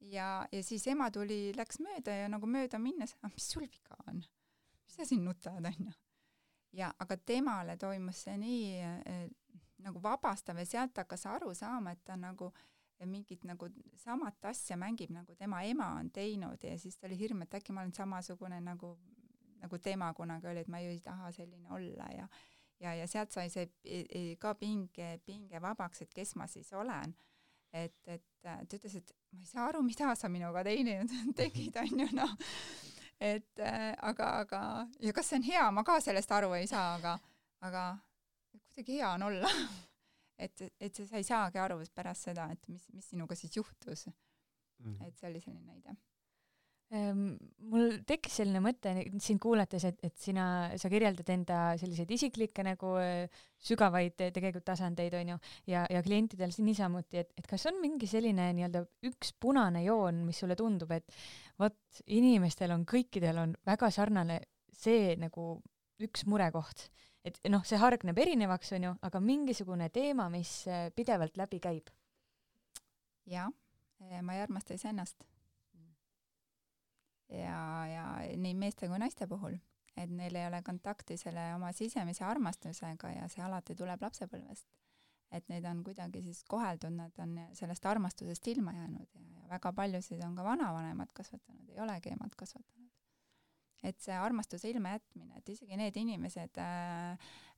Ja siis ema läks mööda ja nagu mööda minnes, mis sul viga on? Mis sa siin nutad, on ju? Ja aga temale toimus see nii nagu vabastav ja sealt hakkas aru saama, et ta nagu mingit nagu samat asja mängib, nagu tema ema on teinud ja siis ta oli hirm, et äkki ma olen samasugune nagu tema kunagi oli, et ma ju ei taha selline olla ja sealt sai see ka pinge vabaks, et kes ma siis olen. Et ta ütles, et ma ei saa aru, mida sa minuga tegid, on ju, noh. Et aga ja kas see on hea, ma ka sellest aru ei saa, aga kuidagi hea on olla. et sa ei saagi aru pärast seda, et mis sinuga siis juhtus. Et see oli selline näide. Mul tekkis selline mõte sind kuulates, et sa kirjeldad enda selliseid isiklikke nagu sügavaid tegelikult tasandeid, on ju, ja klientidel niisamuti, et kas on mingi selline nii-öelda üks punane joon, mis sulle tundub, et vot inimestel kõikidel on väga sarnane see nagu üks murekoht. Et noh, see hargneb erinevaks, on ju, aga mingisugune teema, mis pidevalt läbi käib. Ja, ma ei armasta iseennast. Ja nii meeste kui naiste puhul, et neil ei ole kontakti selle oma sisemise armastusega ja see alati tuleb lapsepõlvest. Et neid on kuidagi siis koheldud, nad on sellest armastusest ilma jäänud ja väga paljusid on ka vanavanemad kasvatanud, ei olegi emad kasvatanud. Et see armastuse ilma jätmine, et isegi need inimesed,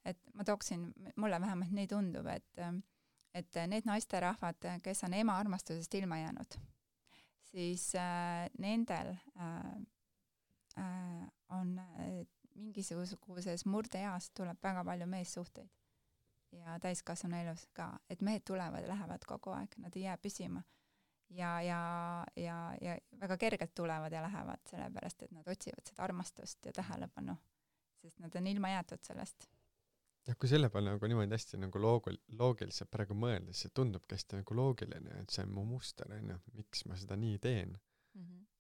et ma tooksin, mulle vähemalt nii tundub, et need naisterahvad, kes on ema armastusest ilma jäänud, siis nendel on mingisuguses murdeeas tuleb väga palju meessuhteid ja täiskasvanu elus ka, et mehed tulevad ja lähevad kogu aeg, nad ei jää püsima ja väga kergelt tulevad ja lähevad, sellepärast et nad otsivad seda armastust ja tähelepanu, sest nad on ilma jäetud sellest. Ja kui selle peale nagu niimoodi hästi nagu loogiliselt praegu mõelda, siis see tundubki hästi nagu loogiline, et see on mu muster, miks ma seda nii teen.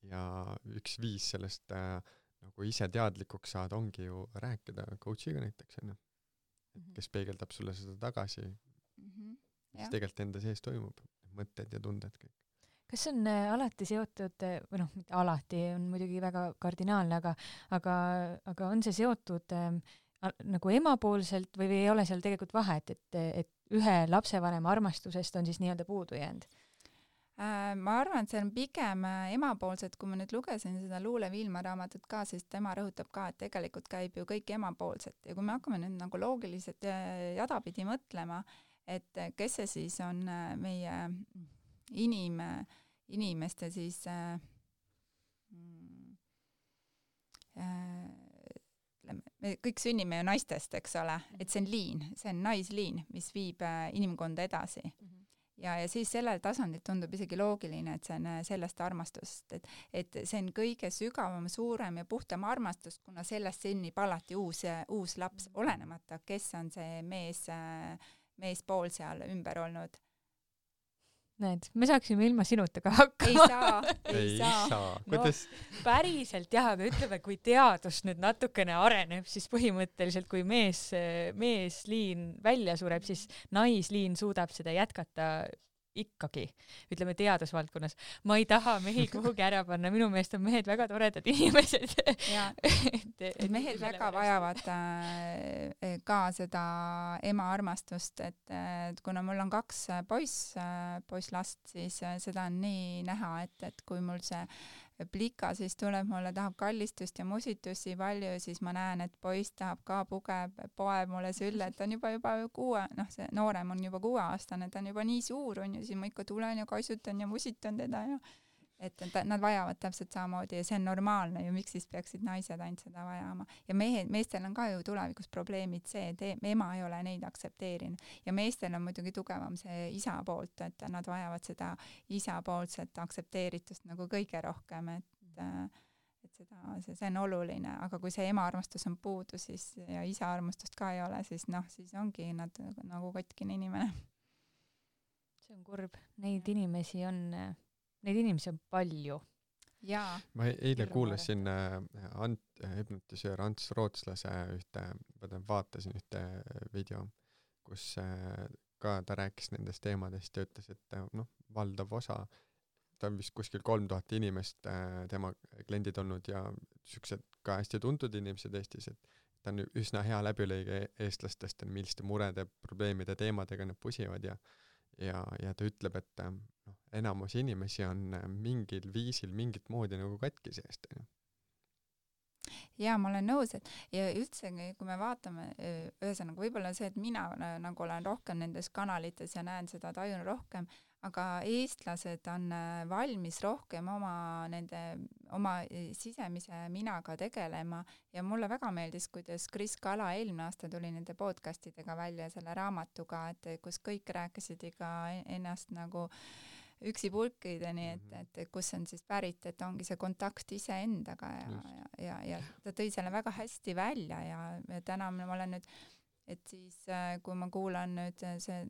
Ja üks viis sellest nagu ise teadlikuks saada ongi ju rääkida coachiga näiteks, kes peegeldab sulle seda tagasi, mis tegelikult enda sees toimub, mõtted ja tunded kõik. Kas on alati seotud, või noh, mitte alati, on muidugi väga kardinaalne, aga on see seotud nagu emapoolselt või ei ole seal tegelikult vahet, et ühe lapsevanema armastusest on siis nii-öelda puudu jäänud? Ma arvan, et see on pigem emapoolset, kui ma nüüd lugesin seda Luule Viilma raamatut ka, siis tema rõhutab ka, et tegelikult käib ju kõik emapoolset ja kui me hakkame nüüd nagu loogiliselt jadapidi mõtlema, et kes see siis on meie inimeste siis me kõik sünnime ju naistest, eks ole, et see on liin, see on naisliin, mis viib inimkonda edasi. Ja siis sellel tasandil tundub isegi loogiline, et see on sellest armastust, et see on kõige sügavam, suurem ja puhtam armastus, kuna sellest sünnib alati uus laps, olenemata, kes on see meespool seal ümber olnud. Näed, me saaksime ilma sinuta ka hakkama. Ei saa. Kuidas? No, päriselt jah, aga ütleme, kui teadus nüüd natukene areneb, siis põhimõtteliselt kui meesliin välja sureb, siis naisliin suudab seda jätkata ikkagi, ütleme teadusvaldkonnas. Ma ei taha mehi kuhugi ära panna, minu meelest on mehed väga toredad inimesed. Mehed väga vajavad ka seda ema armastust, et kuna mul on 2 poisslast, siis seda on nii näha, et kui mul see plika siis tuleb, mulle tahab kallistust ja musitusi palju, siis ma näen, et poiss tahab ka poeb mulle sülle, et ta on juba 6, noh see noorem on juba 6-aastane, ta on juba nii suur, on ju, siis ma ikka tulen ja kaisutan ja musitan teda ja et nad vajavad täpselt samamoodi ja see on normaalne ju, miks siis peaksid naised ainult seda vajama. Ja meestel on ka ju tulevikus probleemid see, et ema ei ole neid aktsepteerinud ja meestel on muidugi tugevam see isa poolt, et nad vajavad seda isa poolset aktsepteeritust nagu kõige rohkem, et see on oluline, aga kui see ema armastus on puudu siis, ja isa armastust ka ei ole, siis noh, siis ongi nad nagu kotkine inimene. See on kurb, neid inimesi on palju. jaa. ma eile kuulasin hüpnotisöör Ants Rootslase vaatasin ühte video, kus ka ta rääkis nendest teemadest ja ütles, et valdav osa, ta on vist kuskil 3000 inimest tema kliendid olnud ja siuksed ka hästi tuntud inimesed Eestis, et ta on üsna hea läbilõige eestlastest, milliste murede, probleemide, teemadega nad pusivad ja ta ütleb, et enamus inimesi on mingil viisil, mingit moodi nagu katki seest. Jaa, ma olen nõus, et ja üldse, kui me vaatame, ühesõnaga võib-olla see, et mina nagu olen rohkem nendes kanalites ja näen seda, tajun rohkem, aga eestlased on valmis rohkem oma sisemise minaga tegelema ja mulle väga meeldis, kuidas Kris Kala eelmine aasta tuli nende podcastidega välja selle raamatuga, et kus kõik rääkisid iga ennast nagu üksipulkideni, et kus on siis pärit, et ongi see kontakt iseendaga ja ta tõi selle väga hästi välja ja täna ma olen nüüd, et siis kui ma kuulan nüüd see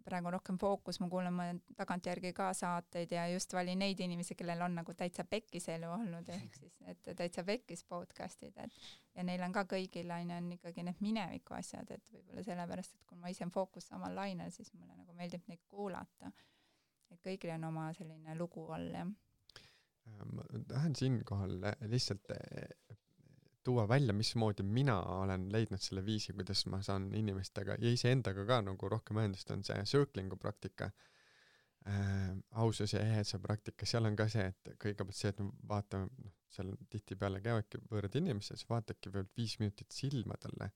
praegu rohkem fookus, ma kuulan tagantjärgi ka saateid ja just valin neid inimesi, kellel on nagu täitsa pekkis elu olnud, ehk siis et täitsa pekkis podcastid, ja neil on ka kõigil on ikkagi need mineviku asjad, et võib-olla sellepärast, et kui ma ise fookus samal lainel, siis mulle nagu meeldib neid kuulata. Et kõigil on oma selline lugu all, jah. Ma tahan siinkohal lihtsalt tuua välja, mismoodi mina olen leidnud selle viisi, kuidas ma saan inimestega ja iseendaga ka nagu rohkem ühendust, on see circling'u praktika, ausus ja eheduse praktika. Seal on ka see, et kõigepealt see, et vaatame, seal tihtipeale käivadki võõrad inimesed, siis vaatadki veel 5 minutit silmadele,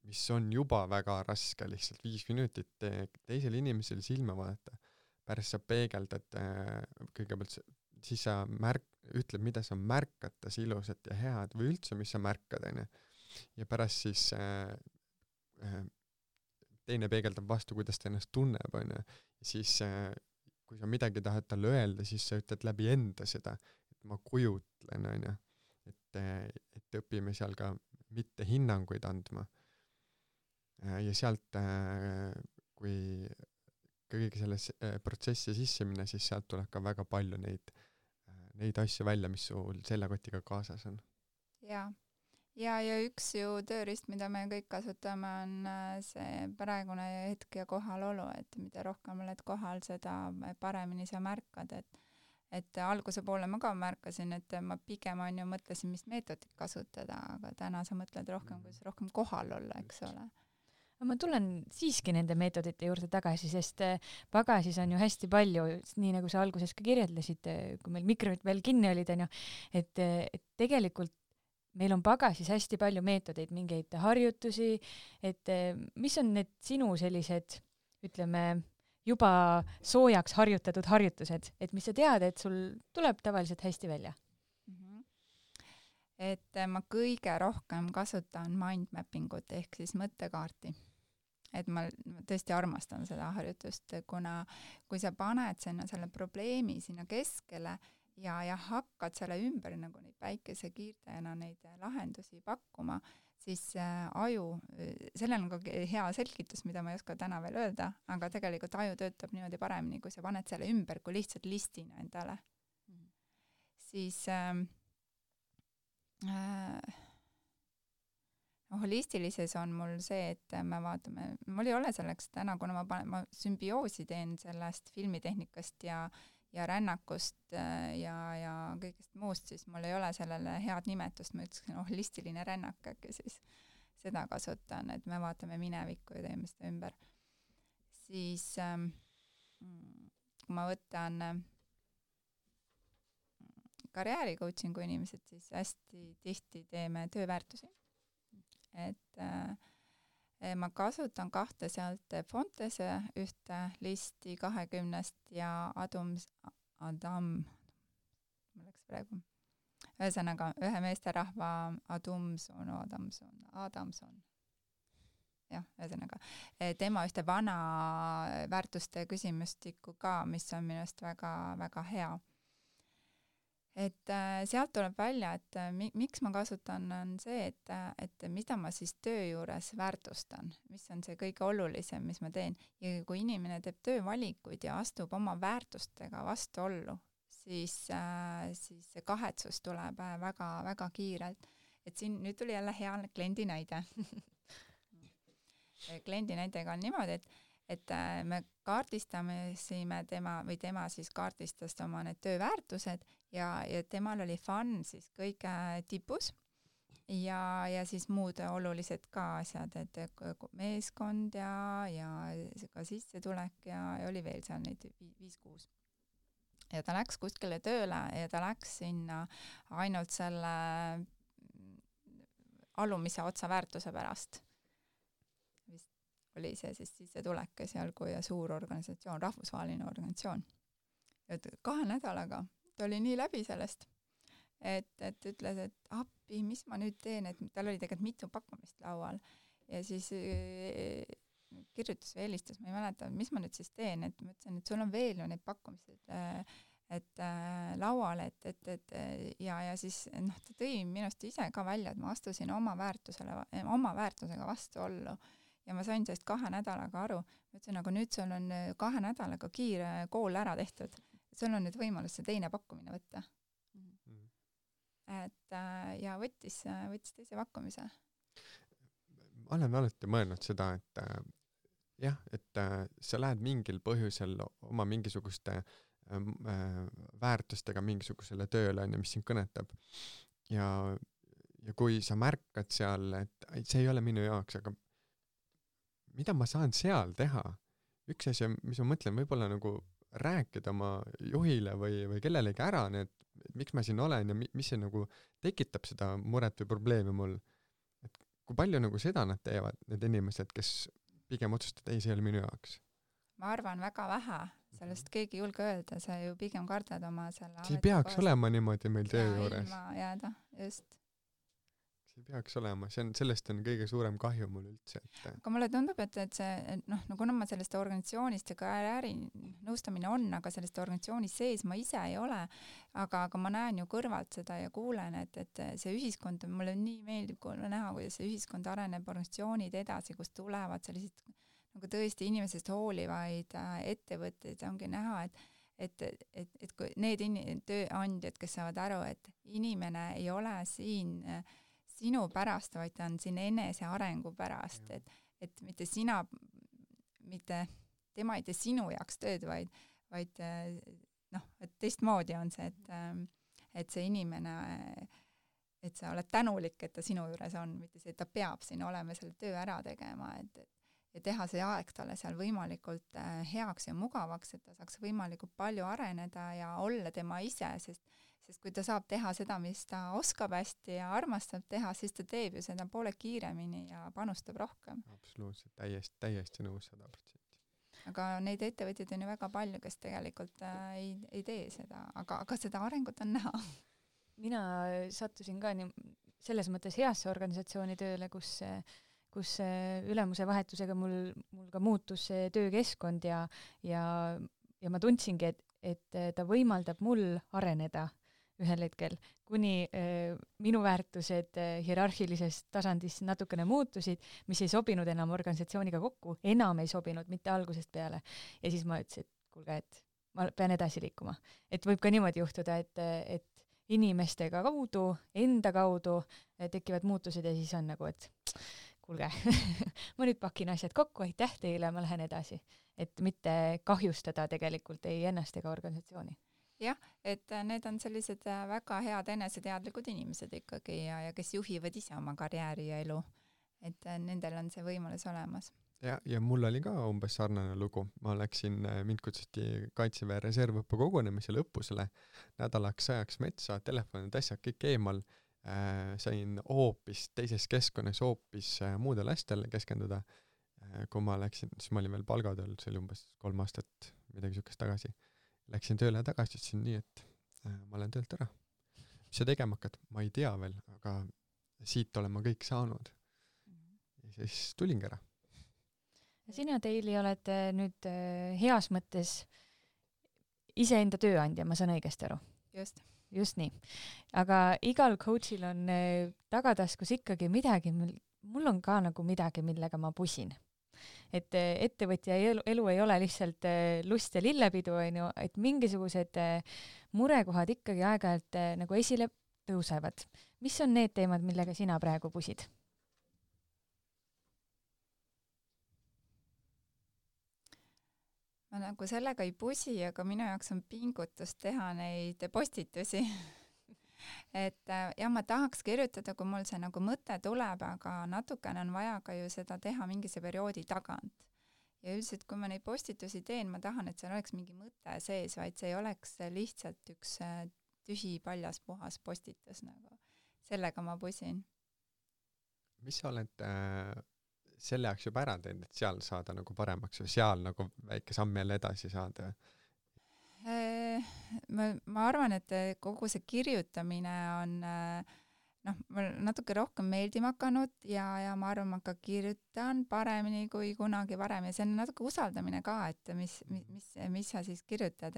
mis on juba väga raske, lihtsalt 5 minutit teisel inimesel silma vaadata. Pärast sa peegeldad kõigepealt, siis sa ütled, mida sa märkad tas ilusat ja head või üldse, mis sa märkad, ja pärast siis teine peegeldab vastu, kuidas ta ennast tunneb, ja siis kui sa midagi tahad talle öelda, siis sa ütled läbi enda seda, et ma kujutlen, et õpime seal ka mitte hinnanguid andma. Ja sealt, kui kõige selles protsessi sisse minna, siis sealt tuleb ka väga palju neid asju välja, mis sul selle kotiga kaasas on. Ja üks ju tööriist, mida me kõik kasutame, on see praegune hetk ja kohalolu, et mida rohkem oled kohal, seda paremini sa märkad, et alguse poole ma ka märkasin, et ma pigem mõtlesin, mis meetodit kasutada, aga täna sa mõtled rohkem, kuidas rohkem kohal olla, eks ole. Ma tulen siiski nende meetodite juurde tagasi, sest pagasis on ju hästi palju, nii nagu sa alguses ka kirjeldasid, kui meil mikrofonid veel kinni olid, et tegelikult meil on pagasis hästi palju meetodeid, mingeid harjutusi, et mis on need sinu sellised, ütleme, juba soojaks harjutatud harjutused, et mis sa tead, et sul tuleb tavaliselt hästi välja? Et ma kõige rohkem kasutan mindmappingut ehk siis mõttekaarti. Et ma tõesti armastan seda harjutust, kuna kui sa paned sinna selle probleemi sinna keskele ja hakkad selle ümber nagu neid päikesekiirtajana neid lahendusi pakkuma, siis aju, sellel on ka hea selgitus, mida ma ei oska täna veel öelda, aga tegelikult aju töötab niimoodi paremini, kui sa paned selle ümber kui lihtsalt listina endale. Siis holistilises on mul see, et me vaatame, mul ei ole selleks täna, kuna ma sümbioosi teen sellest filmitehnikast ja rännakust ja kõigest muust, siis mul ei ole sellele head nimetust, ma ütlesin holistiline rännak, äkki siis seda kasutan, et me vaatame minevikku ja teeme seda ümber. Siis kui ma võtan karjääri coachingu inimesed, siis hästi tihti teeme tööväärtusi. Et ma kasutan 2 sealt Fontese ühte listi 20 ja Adam, ma läks praegu, ühesõnaga ühe meesterahva Adamson. Jah, ühesõnaga. Tema ühte vana väärtuste küsimustikku ka, mis on minust väga, väga hea. Et sealt tuleb välja, et miks ma kasutan, on see, et mida ma siis töö juures väärtustan, mis on see kõige olulisem, mis ma teen. Ja kui inimene teeb töövalikuid ja astub oma väärtustega vastuollu, siis see kahetsus tuleb väga kiirelt. Et siin nüüd tuli jälle hea kliendi näide. Kliendi näitega on niimoodi, et me kaardistasime tema siis kaardistas oma need tööväärtused ja temal oli fun siis kõige tipus ja siis muud olulised ka asjad, et meeskond ja ka sissetulek ja oli veel seal neid 5-6. Ja ta läks kuskile tööle ja ta läks sinna ainult selle alumise otsa väärtuse pärast. Vist oli see siis sissetulek esialgu ja suur organisatsioon, rahvusvaheline organisatsioon. Et 2 nädalaga ta oli nii läbi sellest, et ütles, et appi, mis ma nüüd teen, et tal oli tegelikult mitu pakkumist laual ja siis kirjutas või helistas, ma ei mäleta, mis ma nüüd siis teen, et ma ütlesin, et sul on veel ju neid pakkumised laual, ja siis ta tõi minust ise ka välja, et ma astusin oma väärtusega vastuollu ja ma sain sellest 2 nädalaga aru. Ma ütlesin, aga nüüd sul on 2 nädalaga kiire kool ära tehtud, sul on nüüd võimalus see teine pakkumine võtta. Et ja võttis teise pakkumise. Ma olen alati mõelnud seda, et jah, et sa lähed mingil põhjusel oma mingisuguste väärtustega mingisugusele tööle, mis sind kõnetab. Ja kui sa märkad seal, et see ei ole minu jaoks, aga mida ma saan seal teha? Üks asi, mis ma mõtlen, võib-olla nagu rääkida oma juhile või kellelegi ära, et miks ma siin olen ja mis see nagu tekitab seda muret või probleemi mul. Et kui palju nagu seda nad teevad, need inimesed, kes pigem otsustavad, ei, see ei ole minu jaoks? Ma arvan väga vähe, sellest keegi julge öelda, sa ju pigem kardad oma selle see ei peaks olema niimoodi meil töö juures. Ilma jääda, just. See ei peaks olema, sellest on kõige suurem kahju mul üldse. Aga mulle tundub, et see, kuna ma sellest organisatsioonist ja karjääri nõustamine on, aga sellest organisatsioonis sees ma ise ei ole, aga ma näen ju kõrvalt seda ja kuulen, et see ühiskond, mulle nii meeldib näha, kuidas see ühiskond areneb, organisatsioonid edasi, kus tulevad sellised nagu tõesti inimesest hoolivaid ettevõtteid, ongi näha, et kui need tööandjad, kes saavad aru, et inimene ei ole siin sinu pärast, vaid ta on siin enese arengu pärast, et mitte tema ei tee sinu jaoks tööd, vaid et teistmoodi on see, et see inimene, et sa oled tänulik, et ta sinu juures on, mitte see, et ta peab siin olema selle töö ära tegema, ja teha see aeg talle seal võimalikult heaks ja mugavaks, et ta saaks võimalikult palju areneda ja olla tema ise, sest kui ta saab teha seda, mis ta oskab hästi ja armastab teha, siis ta teeb ju seda poole kiiremini ja panustab rohkem. Absoluutselt, täiesti nõus 100%. Aga neid ettevõtjaid on ju väga palju, kes tegelikult ei tee seda, aga seda arengut on näha. Mina sattusin ka selles mõttes heasse organisatsiooni tööle, kus ülemuse vahetusega mul ka muutus see töökeskkond ja ma tundsingi, et ta võimaldab mul areneda ühel hetkel, kuni minu väärtused hierarhilisest tasandist natukene muutusid, mis ei sobinud enam organisatsiooniga kokku, enam ei sobinud, mitte algusest peale. Ja siis ma ütlesin, et kuulge, et ma pean edasi liikuma. Et võib ka niimoodi juhtuda, et inimestega kaudu, enda kaudu tekivad muutused ja siis on nagu, et kuulge, ma nüüd pakin asjad kokku, aitäh teile, ma lähen edasi. Et mitte kahjustada tegelikult ei ennast ega organisatsiooni. Jah, et need on sellised väga head eneseteadlikud inimesed ikkagi ja kes juhivad ise oma karjääri ja elu. Et nendel on see võimalus olemas. Ja mul oli ka umbes sarnane lugu. Ma läksin, mind kutsuti Kaitseväe reservõppe kogunemisele õppusele nädalaks ajaks metsa, telefonid, asjad kõik eemal. Sain hoopis teises keskkonnas hoopis muudel asjadele keskenduda. Kui ma läksin, siis ma olin veel palgatööl, see oli umbes 3 aastat midagi sukest tagasi. Läksin tööle tagasi, ütlesin nii, et ma olen töölt ära. Mis sa tegema hakkad? Ma ei tea veel, aga siit olen ma kõik saanud. Ja siis tulingi ära. Sina, Teili, oled nüüd heas mõttes iseenda tööandja, ma saan õigesti aru. Just nii. Aga igal coachil on tagataskus ikkagi midagi, mul on ka nagu midagi, millega ma pusin. et ettevõtja elu ei ole lihtsalt lust ja lillepidu, onju, et mingisugused murekohad ikkagi aeg-ajalt nagu esile tõusevad. Mis on need teemad, millega sina praegu pusid? Ma nagu sellega ei pusi, aga minu jaoks on pingutus teha neid postitusi. et jah, ma tahaks kirjutada, kui mul see nagu mõte tuleb, aga natukene on vaja ka ju seda teha mingise perioodi tagant. Ja üldiselt, kui ma neid postitusi teen, ma tahan, et seal oleks mingi mõte sees, vaid see ei oleks lihtsalt üks tühi paljas puhas postitus nagu. Sellega ma pusin. Mis sa oled selle jaoks juba ära teinud, et seal saada nagu paremaks või seal nagu väike samm jälle edasi saada? Ma arvan, et kogu see kirjutamine on mul natuke rohkem meeldima hakanud ja ma arvan, ma ka kirjutan paremini kui kunagi varem ja see on natuke usaldamine ka, et mis sa siis kirjutad,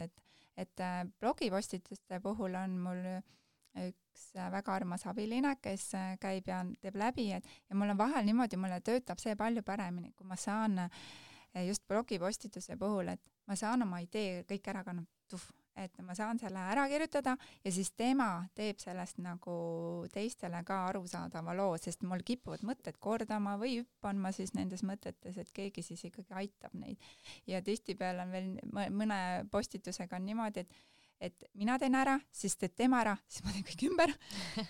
et blogipostituste puhul on mul üks väga armas abiline, kes käib ja teeb läbi, ja mul on vahel niimoodi, mulle töötab see palju paremini, kui ma saan just blogipostituse puhul, et ma saan oma idee kõik ära et ma saan selle ära kirjutada ja siis tema teeb sellest nagu teistele ka arusaadava loo, sest mul kipuvad mõtted kordama või hüppan ma siis nendes mõtetes, et keegi siis ikkagi aitab neid. Ja tihtipeale on veel mõne postitusega on niimoodi, et mina teen ära, siis teed tema ära, siis ma teen kõik ümber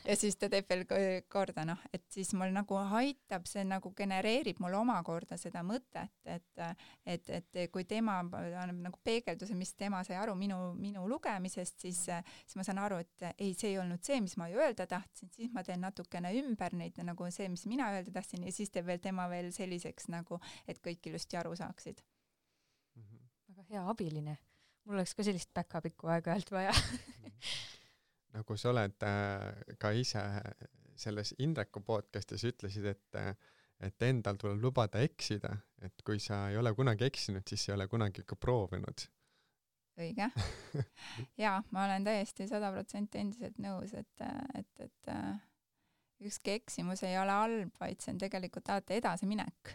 ja siis ta teeb veel korda, et siis mul nagu aitab, see nagu genereerib mul omakorda seda mõtet, et kui tema annab nagu peegelduse, mis tema sai aru minu lugemisest, siis ma saan aru, et ei, see ei olnud see, mis ma öelda tahtsin, siis ma teen natukene ümber neid nagu see, mis mina öelda tahtsin ja siis teeb veel tema veel selliseks nagu, et kõik ilusti aru saaksid. Väga hea abiline. Mul oleks ka sellist backupikku aeg-ajalt vaja. Nagu sa oled ka ise selles Indreku podcastis ütlesid, et endal tuleb lubada eksida, et kui sa ei ole kunagi eksinud, siis ei ole kunagi ka proovinud. Õige. Jaa, ma olen täiesti 100% endiselt nõus, et ükski eksimus ei ole halb, vaid see on tegelikult alati edasiminek.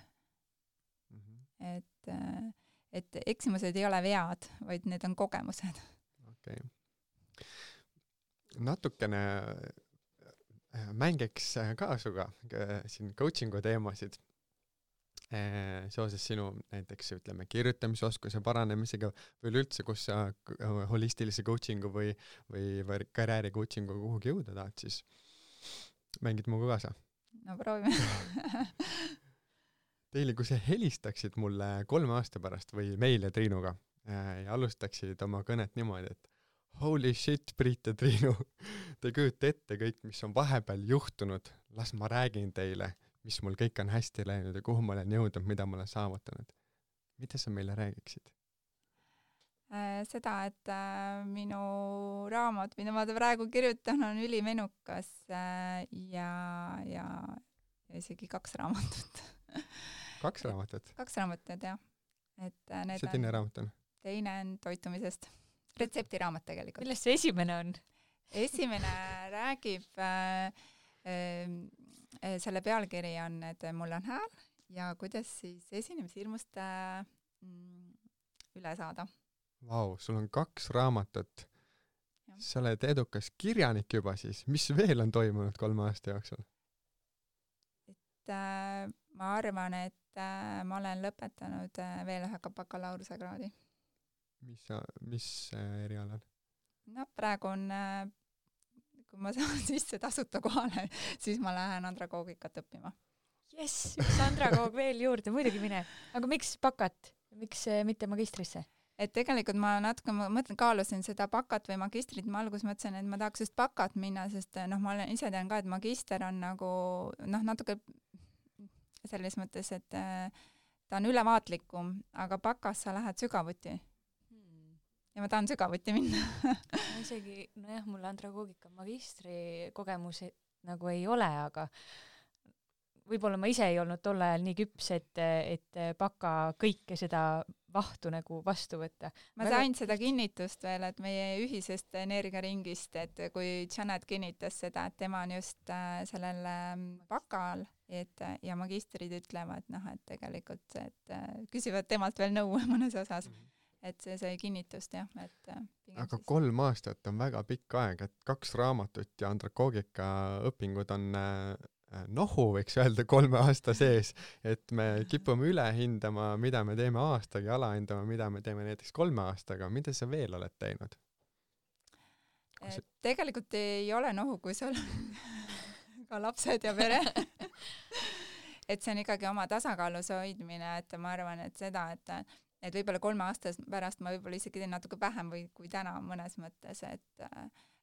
Et eksimused ei ole vead, vaid need on kogemused. Okay. Natukene mängiks ka suga siin coachingu teemasid seoses sinu näiteks ütleme kirjutamisoskuse paranemisega või üldse, kus sa holistilise coachingu või karjääri coachingu kuhugi jõuda tahad, siis mängid muga kaasa? No proovime. Teile, kui sa helistaksid mulle 3 aasta pärast või meile Triinuga ja alustaksid oma kõnet niimoodi, et holy shit, Priit ja Triinu, te kujute ette kõik, mis on vahepeal juhtunud, las ma räägin teile, mis mul kõik on hästi läinud ja kuhu ma olen jõudnud, mida ma olen saavutanud. Mida sa meile räägiksid? Seda, et minu raamat, mida ma praegu kirjutan, on ülimenukas ja isegi 2 raamatut. 2 raamatut? 2 raamatut, jah. Mis see teine raamat on? Teine on toitumisest. Retseptiraamat tegelikult. Millest see esimene on? Esimene räägib, selle pealkiri on, et mul on hääl ja kuidas siis esinemishirmust üle saada. Vau, sul on 2 raamatut. Sa oled edukas kirjanik juba siis. Mis veel on toimunud 3 aasta jooksul? Ma arvan, et ma olen lõpetanud veel ühe bakalaureusekraadi. Mis erialal? No praegu on, kui ma saan sisse tasuta kohale, siis ma lähen andragoogikat õppima. Jess, üks andragoog veel juurde, muidugi mine. Aga miks bakat? Miks mitte magistrisse? Et tegelikult ma natuke kaalusin seda bakat või magistrit, ma alguses mõtlesin, et ma tahaks just bakat minna, sest ma olen ise tean ka, et magister on nagu natuke selles mõttes, et ta on ülevaatlikum, aga bakas sa lähed sügavuti. Ja ma tahan sügavuti minna. Isegi, nojah, mul andragoogika magistri kogemus nagu ei ole, aga võib-olla ma ise ei olnud tol ajal nii küps, et baka kõike seda vahtu nagu vastu võtta. Ma sain seda kinnitust veel, et meie ühisest energiaringist, et kui Janet kinnitas seda, et tema on just sellel bakal, ja magistrid ütlevad, et tegelikult, et küsivad temalt veel nõu mõnes osas, et see sai kinnitust, jah. Aga 3 aastat on väga pikk aeg, et 2 raamatut ja andragoogika õpingud on nohu, võiks öelda 3 aasta sees, et me kipume üle hindama, mida me teeme aastaga ja alahindama, mida me teeme näiteks 3 aastaga. Mida sa veel oled teinud? Tegelikult ei ole nohu, kui sul ka lapsed ja pere. Et see on ikkagi oma tasakaalus hoidmine, et ma arvan, et seda, et võib-olla 3 aasta pärast ma võib-olla isegi teen natuke vähem kui täna mõnes mõttes,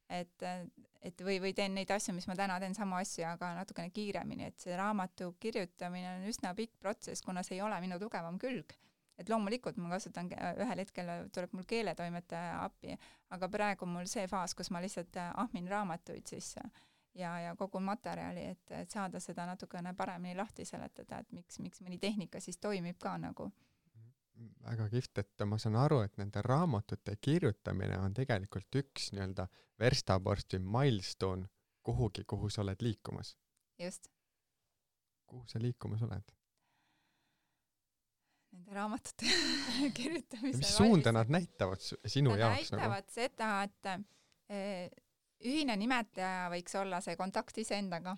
et või teen neid asju, mis ma täna teen samu asju, aga natukene kiiremini, et see raamatu kirjutamine on üsna pikk protsess, kuna see ei ole minu tugevam külg. Et loomulikult ma kasutan, ühel hetkel tuleb mul keeletoimetaja appi, aga praegu mul see faas, kus ma lihtsalt ahmin raamatuid sisse ja kogu materjali, et saada seda natukene paremini lahti seletada, et miks mõni tehnika siis toimib ka nagu. Väga kihvt, et ma saan aru, et nende raamatute kirjutamine on tegelikult üks nii-öelda verstaposti milestone kuhugi, kuhu sa oled liikumas. Just. Kuhu sa liikumas oled? Nende raamatute kirjutamise. Ja mis suunda nad näitavad sinu jaoks? Nad näitavad seda, et ühine nimetaja võiks olla see kontakt iseendaga.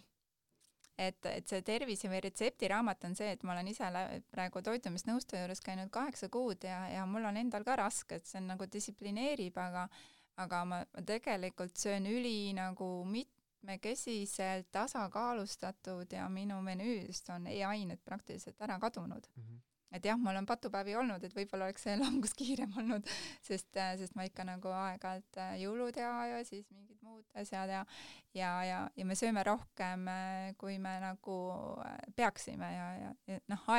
Et see tervise või retseptiraamat on see, et ma olen ise praegu toitumisnõustaja juures käinud 8 kuud ja mul on endal ka raske, et see on nagu distsiplineerib, aga ma tegelikult söön nagu mitmekesiselt tasakaalustatud ja minu menüüst on e-ained praktiliselt ära kadunud. Et jah, mul on patupäevi olnud, et võib-olla oleks see langus kiirem olnud, sest ma ikka nagu aeg-ajalt jõulud ja siis mingid muud asjad ja me sööme rohkem, kui me nagu peaksime ja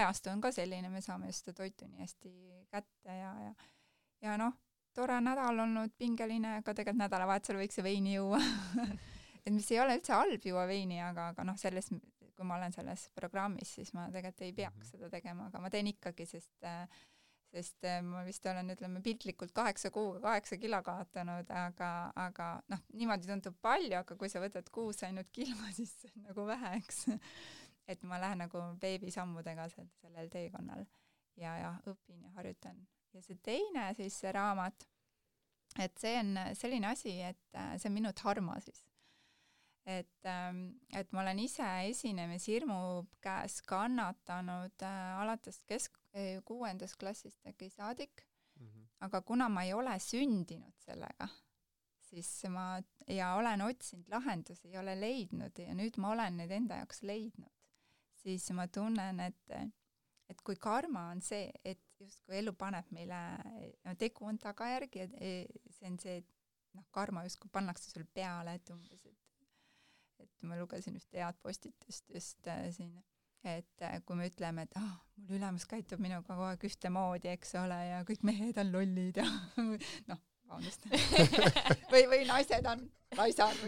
ajastu on ka selline, me saame just toitu nii hästi kätte ja tore nädal olnud, pingeline, aga tegelikult nädalavahetusel võiks see veini juua. Et mis ei ole üldse halb juua veini, aga selles kui ma olen selles programmis, siis ma tegelikult ei peaks seda tegema, aga ma teen ikkagi, sest ma vist olen, ütleme, piltlikult 8 kuuga 8 kilo kaotanud, aga niimoodi tundub palju, aga kui sa võtad kuus ainult kilo, siis see on nagu vähe, eks. Et ma lähen nagu beebisammudega sellel teekonnal ja õpin ja harjutan. Ja see teine siis see raamat, et see on selline asi, et see on minu dharma siis. Et ma olen ise esinemishirmu käes kannatanud alates 6. klassist äkki saadik, aga kuna ma ei ole sündinud sellega, siis ja olen otsinud lahendusi, ei ole leidnud ja nüüd ma olen need enda jaoks leidnud, siis ma tunnen, et kui karma on see, et justkui elu paneb meile, tegu on tagajärgi, see on see, karma justkui pannakse sul peale, et umbes, et ma lugesin ühte head postitust just siin, et kui me ütleme, et mul ülemus käitub minuga kogu aeg ühtemoodi, eks ole, ja kõik mehed on lollid ja vabandust. või naised on naisad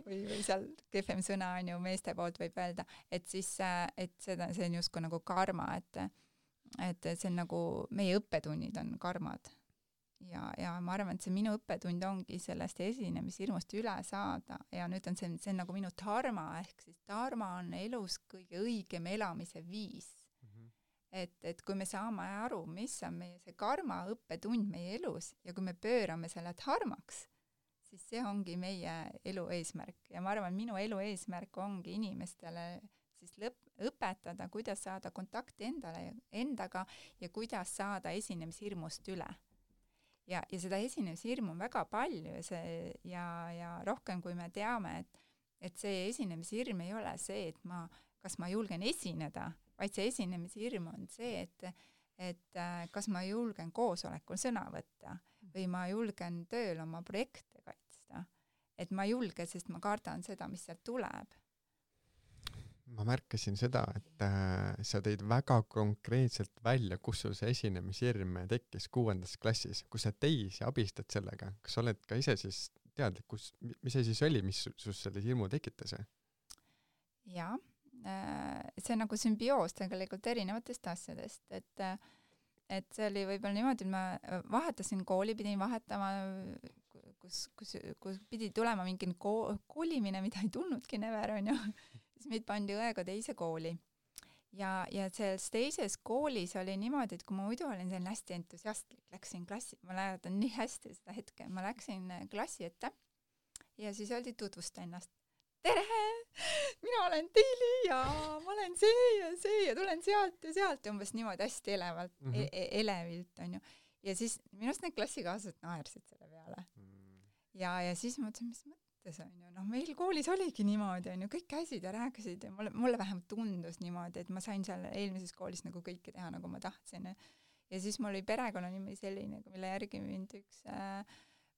või seal kehvem sõna on ju meeste poolt võib öelda, et siis, et see on justkui nagu karma, et see on nagu meie õppetunnid on karmad. Ja ma arvan, et see minu õppetund ongi sellest esinemishirmust üle saada ja nüüd on see on nagu minu dharma, ehk siis dharma on elus kõige õigem elamise viis. Et kui me saame aru, mis on meie see karma õppetund meie elus ja kui me pöörame selle dharmaks, siis see ongi meie elu eesmärk ja ma arvan, minu elu eesmärk ongi inimestele siis õpetada, kuidas saada kontakti endaga ja kuidas saada esinemishirmust üle. Ja seda esinemishirmu on väga palju ja rohkem, kui me teame, et see esinemishirm ei ole see, et kas ma julgen esineda, vaid see esinemishirm on see, et kas ma julgen koosolekul sõna võtta või ma julgen tööl oma projekte kaitsta. Et ma julge, sest ma kardan seda, mis sealt tuleb. Ma märkasin seda, et sa tõid väga konkreetselt välja, kus sul see esinemishirm tekkis 6. klassis, kus sa teisi abistad sellega. Kas sa oled ka ise siis teadlik, mis see siis oli, mis sus selle hirmu tekitas? Jaa, see on nagu sümbioos tegelikult erinevatest asjadest, et see oli võib-olla niimoodi, et ma vahetasin kooli, pidin vahetama, kus pidi tulema mingi kolimine, mida ei tulnudki never, on ju. Siis meid pandi õega teise kooli. Ja selles teises koolis oli niimoodi, et kui ma muidu olin selline hästi entusiastlik, läksin klassi, ma mäletan nii hästi seda hetke, ma läksin klassi ette ja siis öeldi tutvusta ennast. Tere! Mina olen Tiili ja ma olen see ja tulen sealt ja umbes niimoodi hästi elevalt, elevilt, on ju. Ja siis minust need klassikaaslased naersid selle peale. Ja siis ma mõtlesin, mis mõttes on ju, meil koolis oligi niimoodi, on ju, kõik käisid ja rääkisid ja mulle vähemalt tundus niimoodi, et ma sain seal eelmises koolis nagu kõike teha, nagu ma tahtsin. Ja siis mul oli perekonnanimi selline, mille järgi mind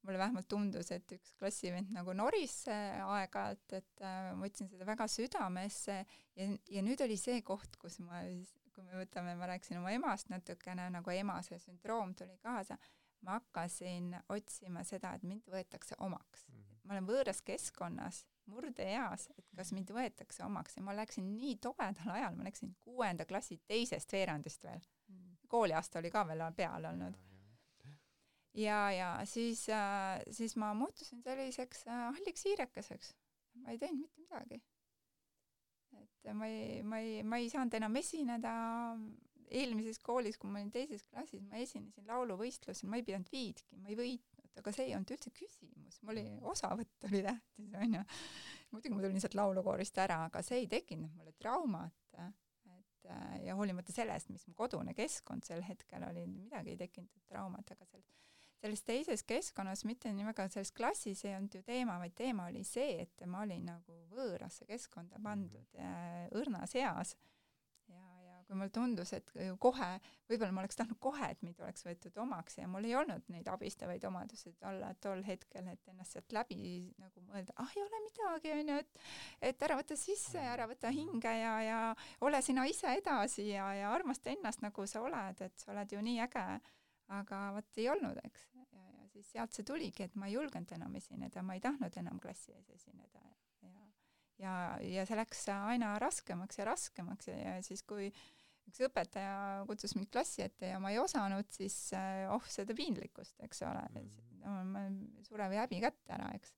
mulle vähemalt tundus, et üks klassivend nagu noris aeg-ajalt, et ma võtsin seda väga südamesse ja nüüd oli see koht, kus kui me võtame, ma rääkisin oma emast natukene, nagu ema see sündroom tuli kaasa, ma hakkasin otsima seda, et mind võetakse omaks. Ma olen võõras keskkonnas, murdeeas, et kas mind võetakse omaks ja ma läksin nii tobedal ajal, ma läksin 6. klassi teisest veerandist veel. Kooliaasta oli ka veel peal olnud. Ja siis ma muutusin selliseks halliks hiirekeseks. Ma ei teinud mitte midagi. Et ma ei saanud enam esineda. Eelmises koolis, kui ma olin teises klassis, ma esinesin lauluvõistlusel, ma ei pidanud viidki, ma ei võitnud, aga see ei olnud üldse küsimus. Mul oli osavõtt oli tähtis, on ju. Muidugi ma tulin sealt laulukoorist ära, aga see ei tekkinud mulle traumat. Ja hoolimata sellest, mis mu kodune keskkond sel hetkel oli, midagi ei tekkinud traumat, aga selles teises keskkonnas, mitte nii väga selles klassis ei olnud ju teema, vaid teema oli see, et ma olin nagu võõrasse keskkonda pandud õrnas eas. Ja kui mulle tundus, et kohe, võib-olla ma oleks tahtnud kohe, et mind oleks võetud omaks ja mul ei olnud neid abistavaid omadused olla tol hetkel, et ennast sealt läbi nagu mõelda, ei ole midagi, on ju, et ära võtta sisse ja ära võtta hinge ja ole sina ise edasi ja armasta ennast, nagu sa oled, et sa oled ju nii äge. Aga võt ei olnud, eks. Ja siis sealt see tuligi, et ma ei julgenud enam esineda, ma ei tahtnud enam klassi ees esineda. Ja see läks aina raskemaks ja siis kui üks õpetaja kutsus mind klassi ette ja ma ei osanud, siis seda piinlikkust, eks ole. Ma surev häbi kätte ära, eks.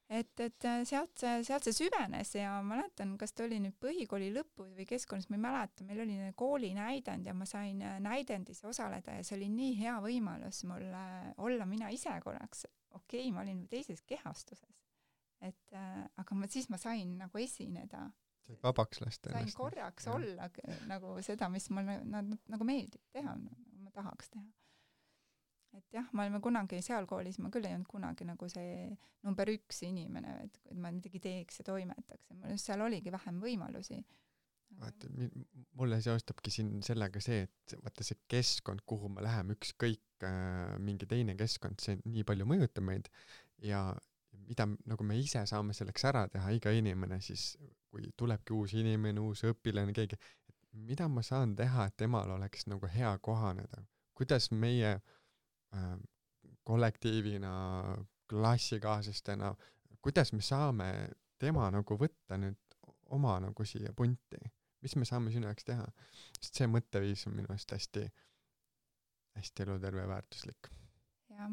Et sealt see süvenes ja ma mäletan, kas ta oli nüüd põhikooli lõpus või keskkonnas, ma ei mäleta, meil oli kooli näidend ja ma sain näidendis osaleda ja see oli nii hea võimalus mulle olla mina ise korraks. Okei, ma olin teises kehastuses. Aga siis ma sain nagu esineda. Said vabaks lasta ennast. Sain korraks olla nagu seda, mis mulle nagu meeldib teha, nagu ma tahaks teha. Et jah, me olime kunagi seal koolis, ma küll ei olnud kunagi nagu see number 1 inimene, et ma midagi teeks ja toimetaks. Seal oligi vähem võimalusi. Mulle seostabki siin sellega see, et vaata see keskkond, kuhu me läheme, ükskõik mingi teine keskkond, see nii palju mõjutab meid ja mida nagu me ise saame selleks ära teha, iga inimene siis, kui tulebki uus inimene, uus õpilane, keegi, et mida ma saan teha, et temal oleks nagu hea kohaneda, kuidas meie kollektiivina, klassikaaslastena, kuidas me saame tema nagu võtta nüüd oma nagu siia punti, mis me saame sinu jaoks teha, sest see mõtteviis on minu eest hästi eluterve ja väärtuslik. Jah,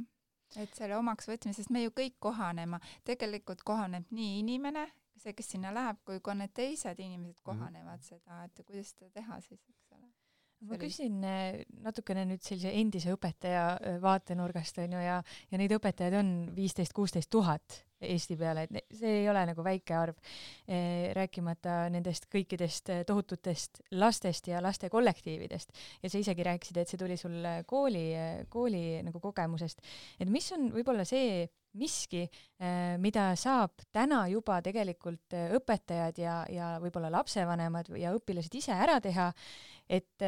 et selle omaks võtmisest me ju kõik kohanema, tegelikult kohaneb nii inimene, see, kes sinna läheb, kui ka need teised inimesed kohanevad seda, et kuidas seda teha siis, eks ole. Ma küsin natukene nüüd sellise endise õpetaja vaatenurgast on ju, ja neid õpetajaid on 15-16 tuhat Eesti peale, et see ei ole nagu väike arv, rääkimata nendest kõikidest tohututest lastest ja laste kollektiividest. Ja sa isegi rääkisid, et see tuli sul kooli nagu kogemusest. Et mis on võib-olla see miski, mida saab täna juba tegelikult õpetajad ja võib-olla lapsevanemad ja õpilased ise ära teha, et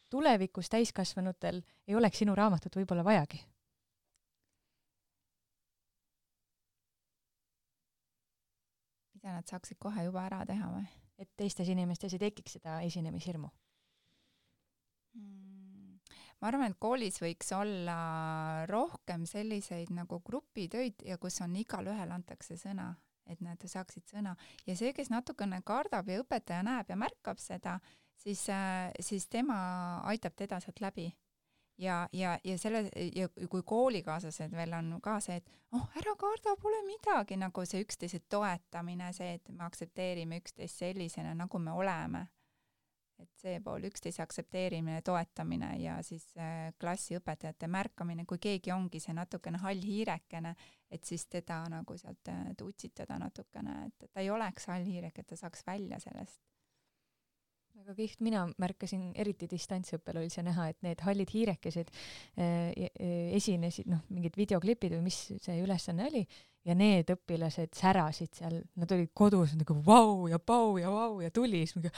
tulevikus täiskasvanutel ei oleks sinu raamatut võib-olla vajagi? Mida nad saaksid kohe juba ära teha või? Et teistes inimestes ei tekiks seda esinemishirmu? Ma arvan, et koolis võiks olla rohkem selliseid nagu grupitöid ja kus on igal ühel antakse sõna. et nad saaksid sõna. Ja see, kes natukene kardab ja õpetaja näeb ja märkab seda, siis tema aitab teda sealt läbi. Ja kui koolikaaslased veel on ka see, et ära karda, pole midagi, nagu see üksteise toetamine, see, et me aktsepteerime üksteist sellisena, nagu me oleme. Et see pool üksteise aktsepteerimine, toetamine ja siis klassiõpetajate märkamine, kui keegi ongi see natukene hall hiirekene, et siis teda nagu sealt utsitada natukene, et ta ei oleks hall hiirek, et ta saaks välja sellest. Väga kihvt, mina märkasin eriti distantsõppel oli see näha, et need hallid hiirekesed esinesid, mingid videoklipid või mis see ülesanne oli, ja need õpilased särasid seal, nad olid kodus nagu vau ja pau ja vau ja tuli, siis mingi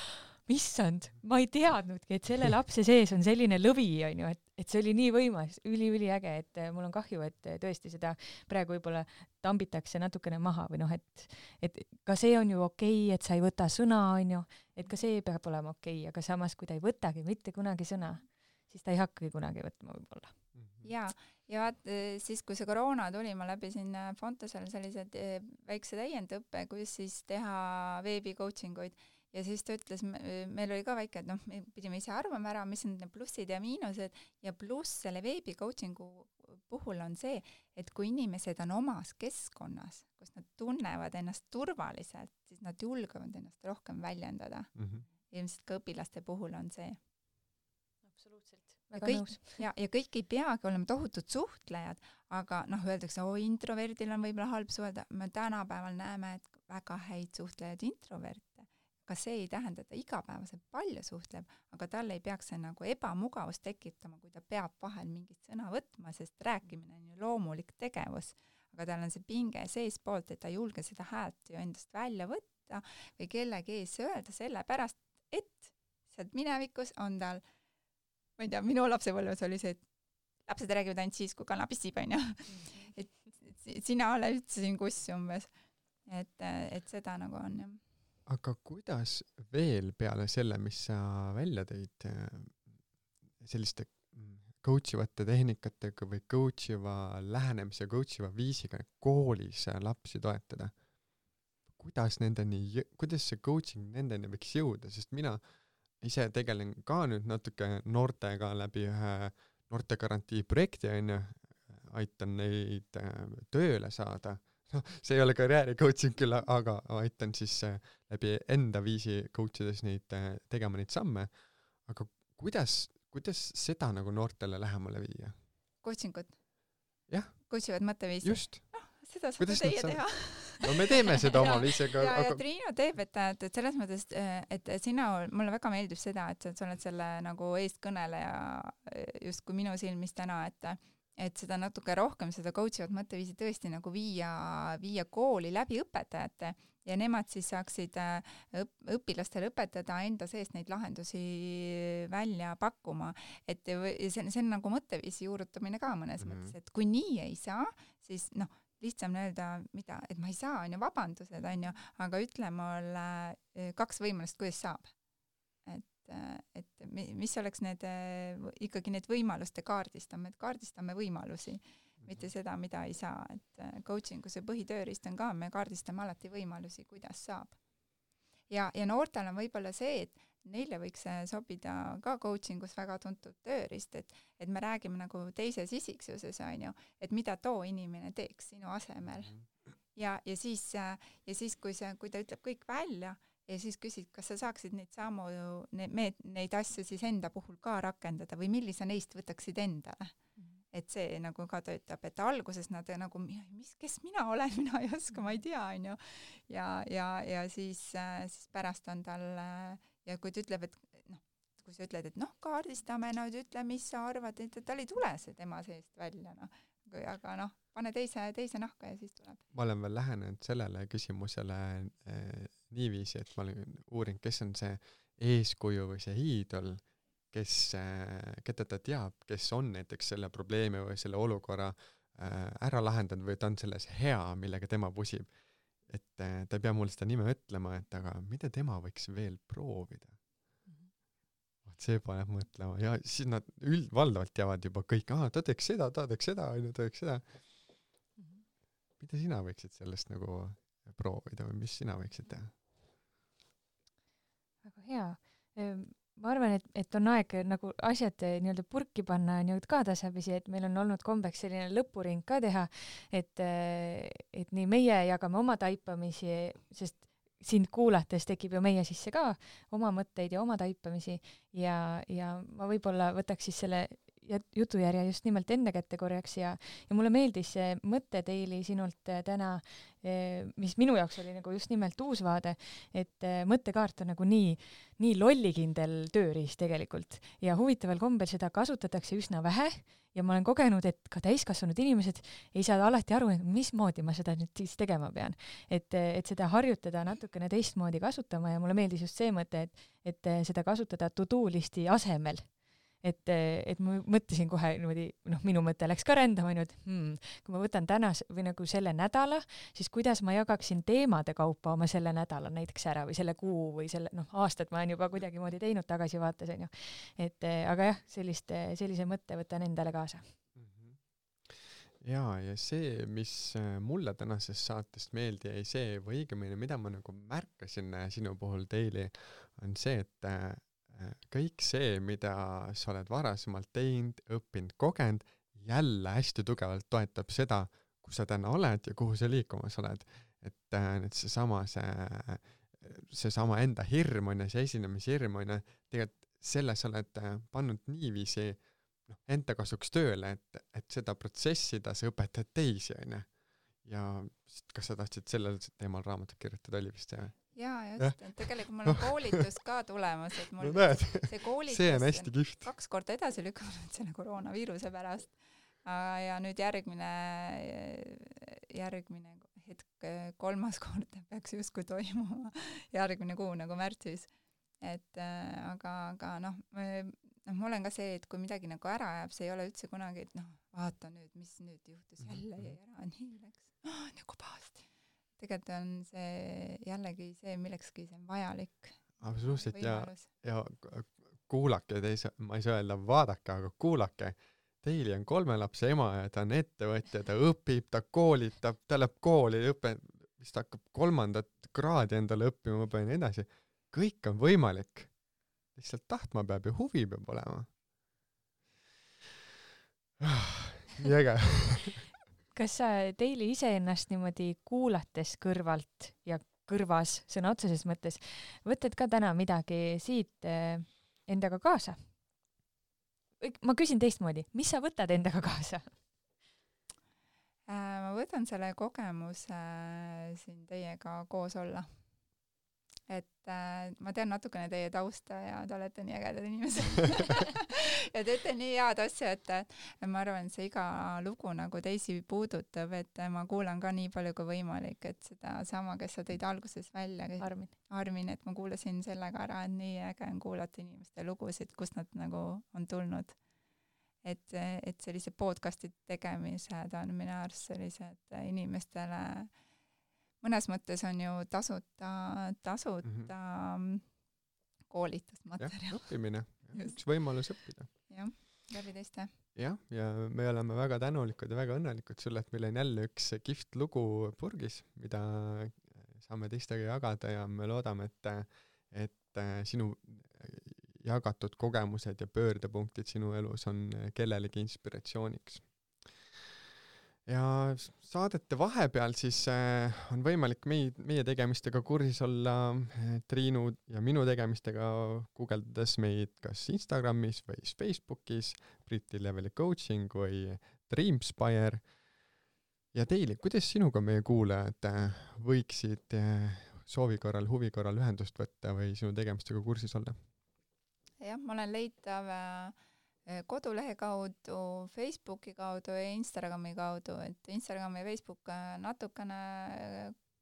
issand, ma ei teadnudki, et selle lapse sees on selline lõvi, on ju, et see oli nii võimas, üliäge, et mul on kahju, et tõesti seda praegu võib-olla tambitakse natukene maha või et ka see on ju okei, et sa ei võta sõna, on ju, et ka see peab olema okei, aga samas, kui ta ei võtagi mitte kunagi sõna, siis ta ei hakkagi kunagi võtma võib-olla. Ja vaat siis, kui see koroona tuli, ma läbisin Fontosel sellised väikse täiendõppe, kus siis teha veebi coachinguid. Ja siis ta ütles, meil oli ka väike, et me pidime ise arvama ära, mis on need plussid ja miinused, ja pluss selle veebi coachingu puhul on see, et kui inimesed on omas keskkonnas, kus nad tunnevad ennast turvaliselt, siis nad julgevad ennast rohkem väljendada. Ilmselt ka õpilaste puhul on see. Absoluutselt. Ja kõik ei peagi olema tohutud suhtlejad, aga öeldakse, introverdil on võib-olla halb suhelda. Me tänapäeval näeme, et väga häid suhtlejad introverte. Ka see ei tähenda, et ta igapäevaselt palju suhtleb, aga talle ei peaks see nagu ebamugavust tekitama, kui ta peab vahel mingit sõna võtma, sest rääkimine on ju loomulik tegevus. Aga tal on see pinge seespoolt, et ta ei julge seda häält ju endast välja võtta või kellegi ees öelda sellepärast, et sealt minevikus on tal, ma ei tea, minu lapsepõlves oli see, et lapsed räägivad ainult siis, kui kana pissib, on ju. Et sina ole üldse siin kuss umbes. Et seda nagu on, jah. Aga kuidas veel peale selle, mis sa välja tõid, selliste coachivate tehnikatega või coachiva lähenemise, coachiva viisiga koolis lapsi toetada? Kuidas see coaching nendeni võiks jõuda? Sest mina ise tegelen ka nüüd natuke noortega läbi ühe noortegarantii projekti, aitan neid tööle saada. See ei ole karjääri coaching küll, aga aitan siis läbi enda viisi coachides neid tegema neid samme. Aga kuidas seda nagu noortele lähemale viia? Coachingut? Jah. Coachivad mõtteviisi? Just. Seda saab teie teha. No me teeme seda oma viisiga. Ja Triinu teeb, et selles mõttes, et mulle väga meeldib seda, et sa oled selle nagu eestkõneleja just kui minu silmis täna, et seda natuke rohkem, seda coachivat mõtteviisi tõesti nagu viia kooli läbi õpetajate ja nemad siis saaksid õpilastele õpetada enda seest neid lahendusi välja pakkuma. Et see on nagu mõtteviisi juurutamine ka mõnes mõttes, et kui nii ei saa, siis lihtsam öelda, et ma ei saa, on ju, vabandused, on ju, aga ütle mulle 2 võimalust, kuidas saab. Et mis oleks ikkagi need võimaluste kaardistame võimalusi, mitte seda, mida ei saa. Et coachingu see põhitööriist on ka, me kaardistame alati võimalusi, kuidas saab. Ja noortel on võib-olla see, et neile võiks sobida ka coachingus väga tuntud tööriist, et me räägime nagu teises isiksuses, on ju, et mida too inimene teeks sinu asemel. Ja siis kui ta ütleb kõik välja, ja siis küsid, kas sa saaksid neid asju siis enda puhul ka rakendada või millise neist võtaksid endale. Et see nagu ka töötab, et alguses nad nagu, kes mina olen, mina ei oska, ma ei tea, on ju. Ja siis pärast on tal, ja kui ta ütleb, et kui sa ütled, et kaardistame, ütle, mis sa arvad, et tal ei tule see tema seest välja, aga pane teise nahka ja siis tuleb. Ma olen veel lähenenud sellele küsimusele niiviisi, et ma olen uurinud, kes on see eeskuju või see hiidol, keda ta teab, kes on näiteks selle probleemi või selle olukorra ära lahendanud või ta on selles hea, millega tema pusib. Et ta ei pea mulle seda nime ütlema, et aga mida tema võiks veel proovida? See paneb mõtlema ja siis nad valdavalt teavad juba kõik, ta teeks seda, Mida sina võiksid sellest nagu proovida või mis sina võiksid teha? Väga hea. Ma arvan, et on aeg nagu asjad nii-öelda purki panna nii-öelda ka tasapisi, et meil on olnud kombeks selline lõpuring ka teha, et nii meie jagame oma taipamisi, sest sind kuulates tekib ju meie sisse ka oma mõtteid ja oma taipamisi ja ma võib-olla võtaks siis selle jutujärje just nimelt enda kätte korjaks ja mulle meeldis see mõte Daily sinult täna, mis minu jaoks oli nagu just nimelt uus vaade, et mõttekaart on nagu nii lollikindel tööriist tegelikult ja huvitaval kombel seda kasutatakse üsna vähe ja ma olen kogenud, et ka täiskasvanud inimesed ei saa alati aru, mismoodi ma seda nüüd siis tegema pean. Et seda harjutada natukene teistmoodi kasutama ja mulle meeldis just see mõte, et seda kasutada to-do listi asemel. Et ma mõtlesin kohe niimoodi, minu mõte läks ka rändama, et kui ma võtan täna või nagu selle nädala, siis kuidas ma jagaksin teemade kaupa oma selle nädala näiteks ära või selle kuu või selle, aastat ma olen juba kuidagi moodi teinud tagasivaates, on ju. Aga jah, sellise mõtte võtan endale kaasa. Ja see, mis mulle tänasest saatest meeldi jäi see, või õigemini, mida ma nagu märkasin sinu puhul Daily, on see, et kõik see, mida sa oled varasemalt teinud, õppinud, kogenud, jälle hästi tugevalt toetab seda, kus sa täna oled ja kuhu sa liikumas oled. Et seesama enda hirm on ja see esinemishirm on ja tegelikult selle sa oled pannud niiviisi enda kasuks tööle, et seda protsessida sa õpetad teisi, on ju. Ja kas sa tahtsid sellel teemal raamatut kirjutada, oli vist see? Jaa, just, et tegelikult mul on koolitus ka tulemas, et mul see koolitus see on hästi kihvt. 2 korda edasi lükanud selle koroonaviiruse pärast ja nüüd järgmine hetk 3. kord peaks justkui toimuma järgmine kuu nagu märtsis. Aga ma olen ka see, et kui midagi nagu ära jääb, see ei ole üldse kunagi, et vaata nüüd, mis nüüd juhtus jälle ja ära, nii läks, nagu pahasti. Tegelikult on see jällegi see, millekski see on vajalik. Absoluutselt ja kuulake, ma ei saa öelda vaadake, aga kuulake. Daily on 3 lapse ema ja ta on ettevõtja, ta õpib, ta koolitab, ta läheb kooli, vist hakkab 3. kraadi endale õppima ja nii edasi. Kõik on võimalik. Lihtsalt tahtma peab ja huvi peab olema. Nii äge. Kas sa Daily iseennast niimoodi kuulates kõrvalt ja kõrvas sõna otseses mõttes võtad ka täna midagi siit endaga kaasa? Ma küsin teistmoodi, mis sa võtad endaga kaasa? Ma võtan selle kogemuse siin teiega koos olla. Ma tean natukene teie tausta ja te olete nii ägedad inimesed. Ja teete nii head asja, et ma arvan, et see iga lugu nagu teisi puudutab, et ma kuulan ka nii palju kui võimalik, et seda sama, kes sa tõid alguses välja, Armin, et ma kuulasin sellega ära, et nii äge on kuulata inimeste lugusid, kust nad nagu on tulnud. Et sellise podcasti tegemised on minu arust sellised inimestele mõnes mõttes on ju tasuta koolitusmaterjal. Ja, õppimine. Üks võimalus õppida. Jah, läbi teiste. Ja me oleme väga tänulikud ja väga õnnelikud sulle, et meil on jälle üks kihvt lugu purgis, mida saame teistega jagada ja me loodame, et sinu jagatud kogemused ja pöördepunktid sinu elus on kellelegi inspiratsiooniks. Ja saadete vahepeal siis on võimalik meie tegemistega kursis olla, Triinu ja minu tegemistega guugeldades meid kas Instagramis või Facebookis, Briti Leveli Coaching või Dreamspire. Ja Daily, kuidas sinuga meie kuulajad võiksid soovi korral, huvi korral ühendust võtta või sinu tegemistega kursis olla? Jah, ma olen leitav kodulehe kaudu, Facebooki kaudu ja Instagrami kaudu, et Instagram ja Facebook natukene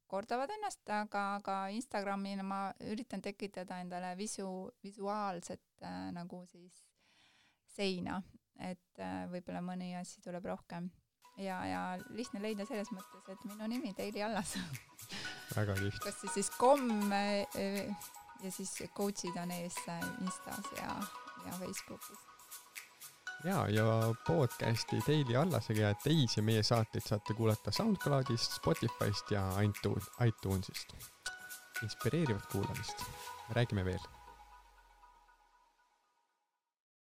kordavad ennast, aga Instagramina ma üritan tekitada endale visuaalset nagu siis seina, et võib-olla mõni asi tuleb rohkem. Ja lihtne leida selles mõttes, et minu nimi Daily Allas. Väga lihtne. Kas siis kom ja siis coachid on ees Instas ja Facebookis. ja podcasti Daily Allasega ja teisi meie saateid saate kuulata SoundCloudist, Spotifyst ja iTunesist. Inspireerivat kuulamist. Räägime veel.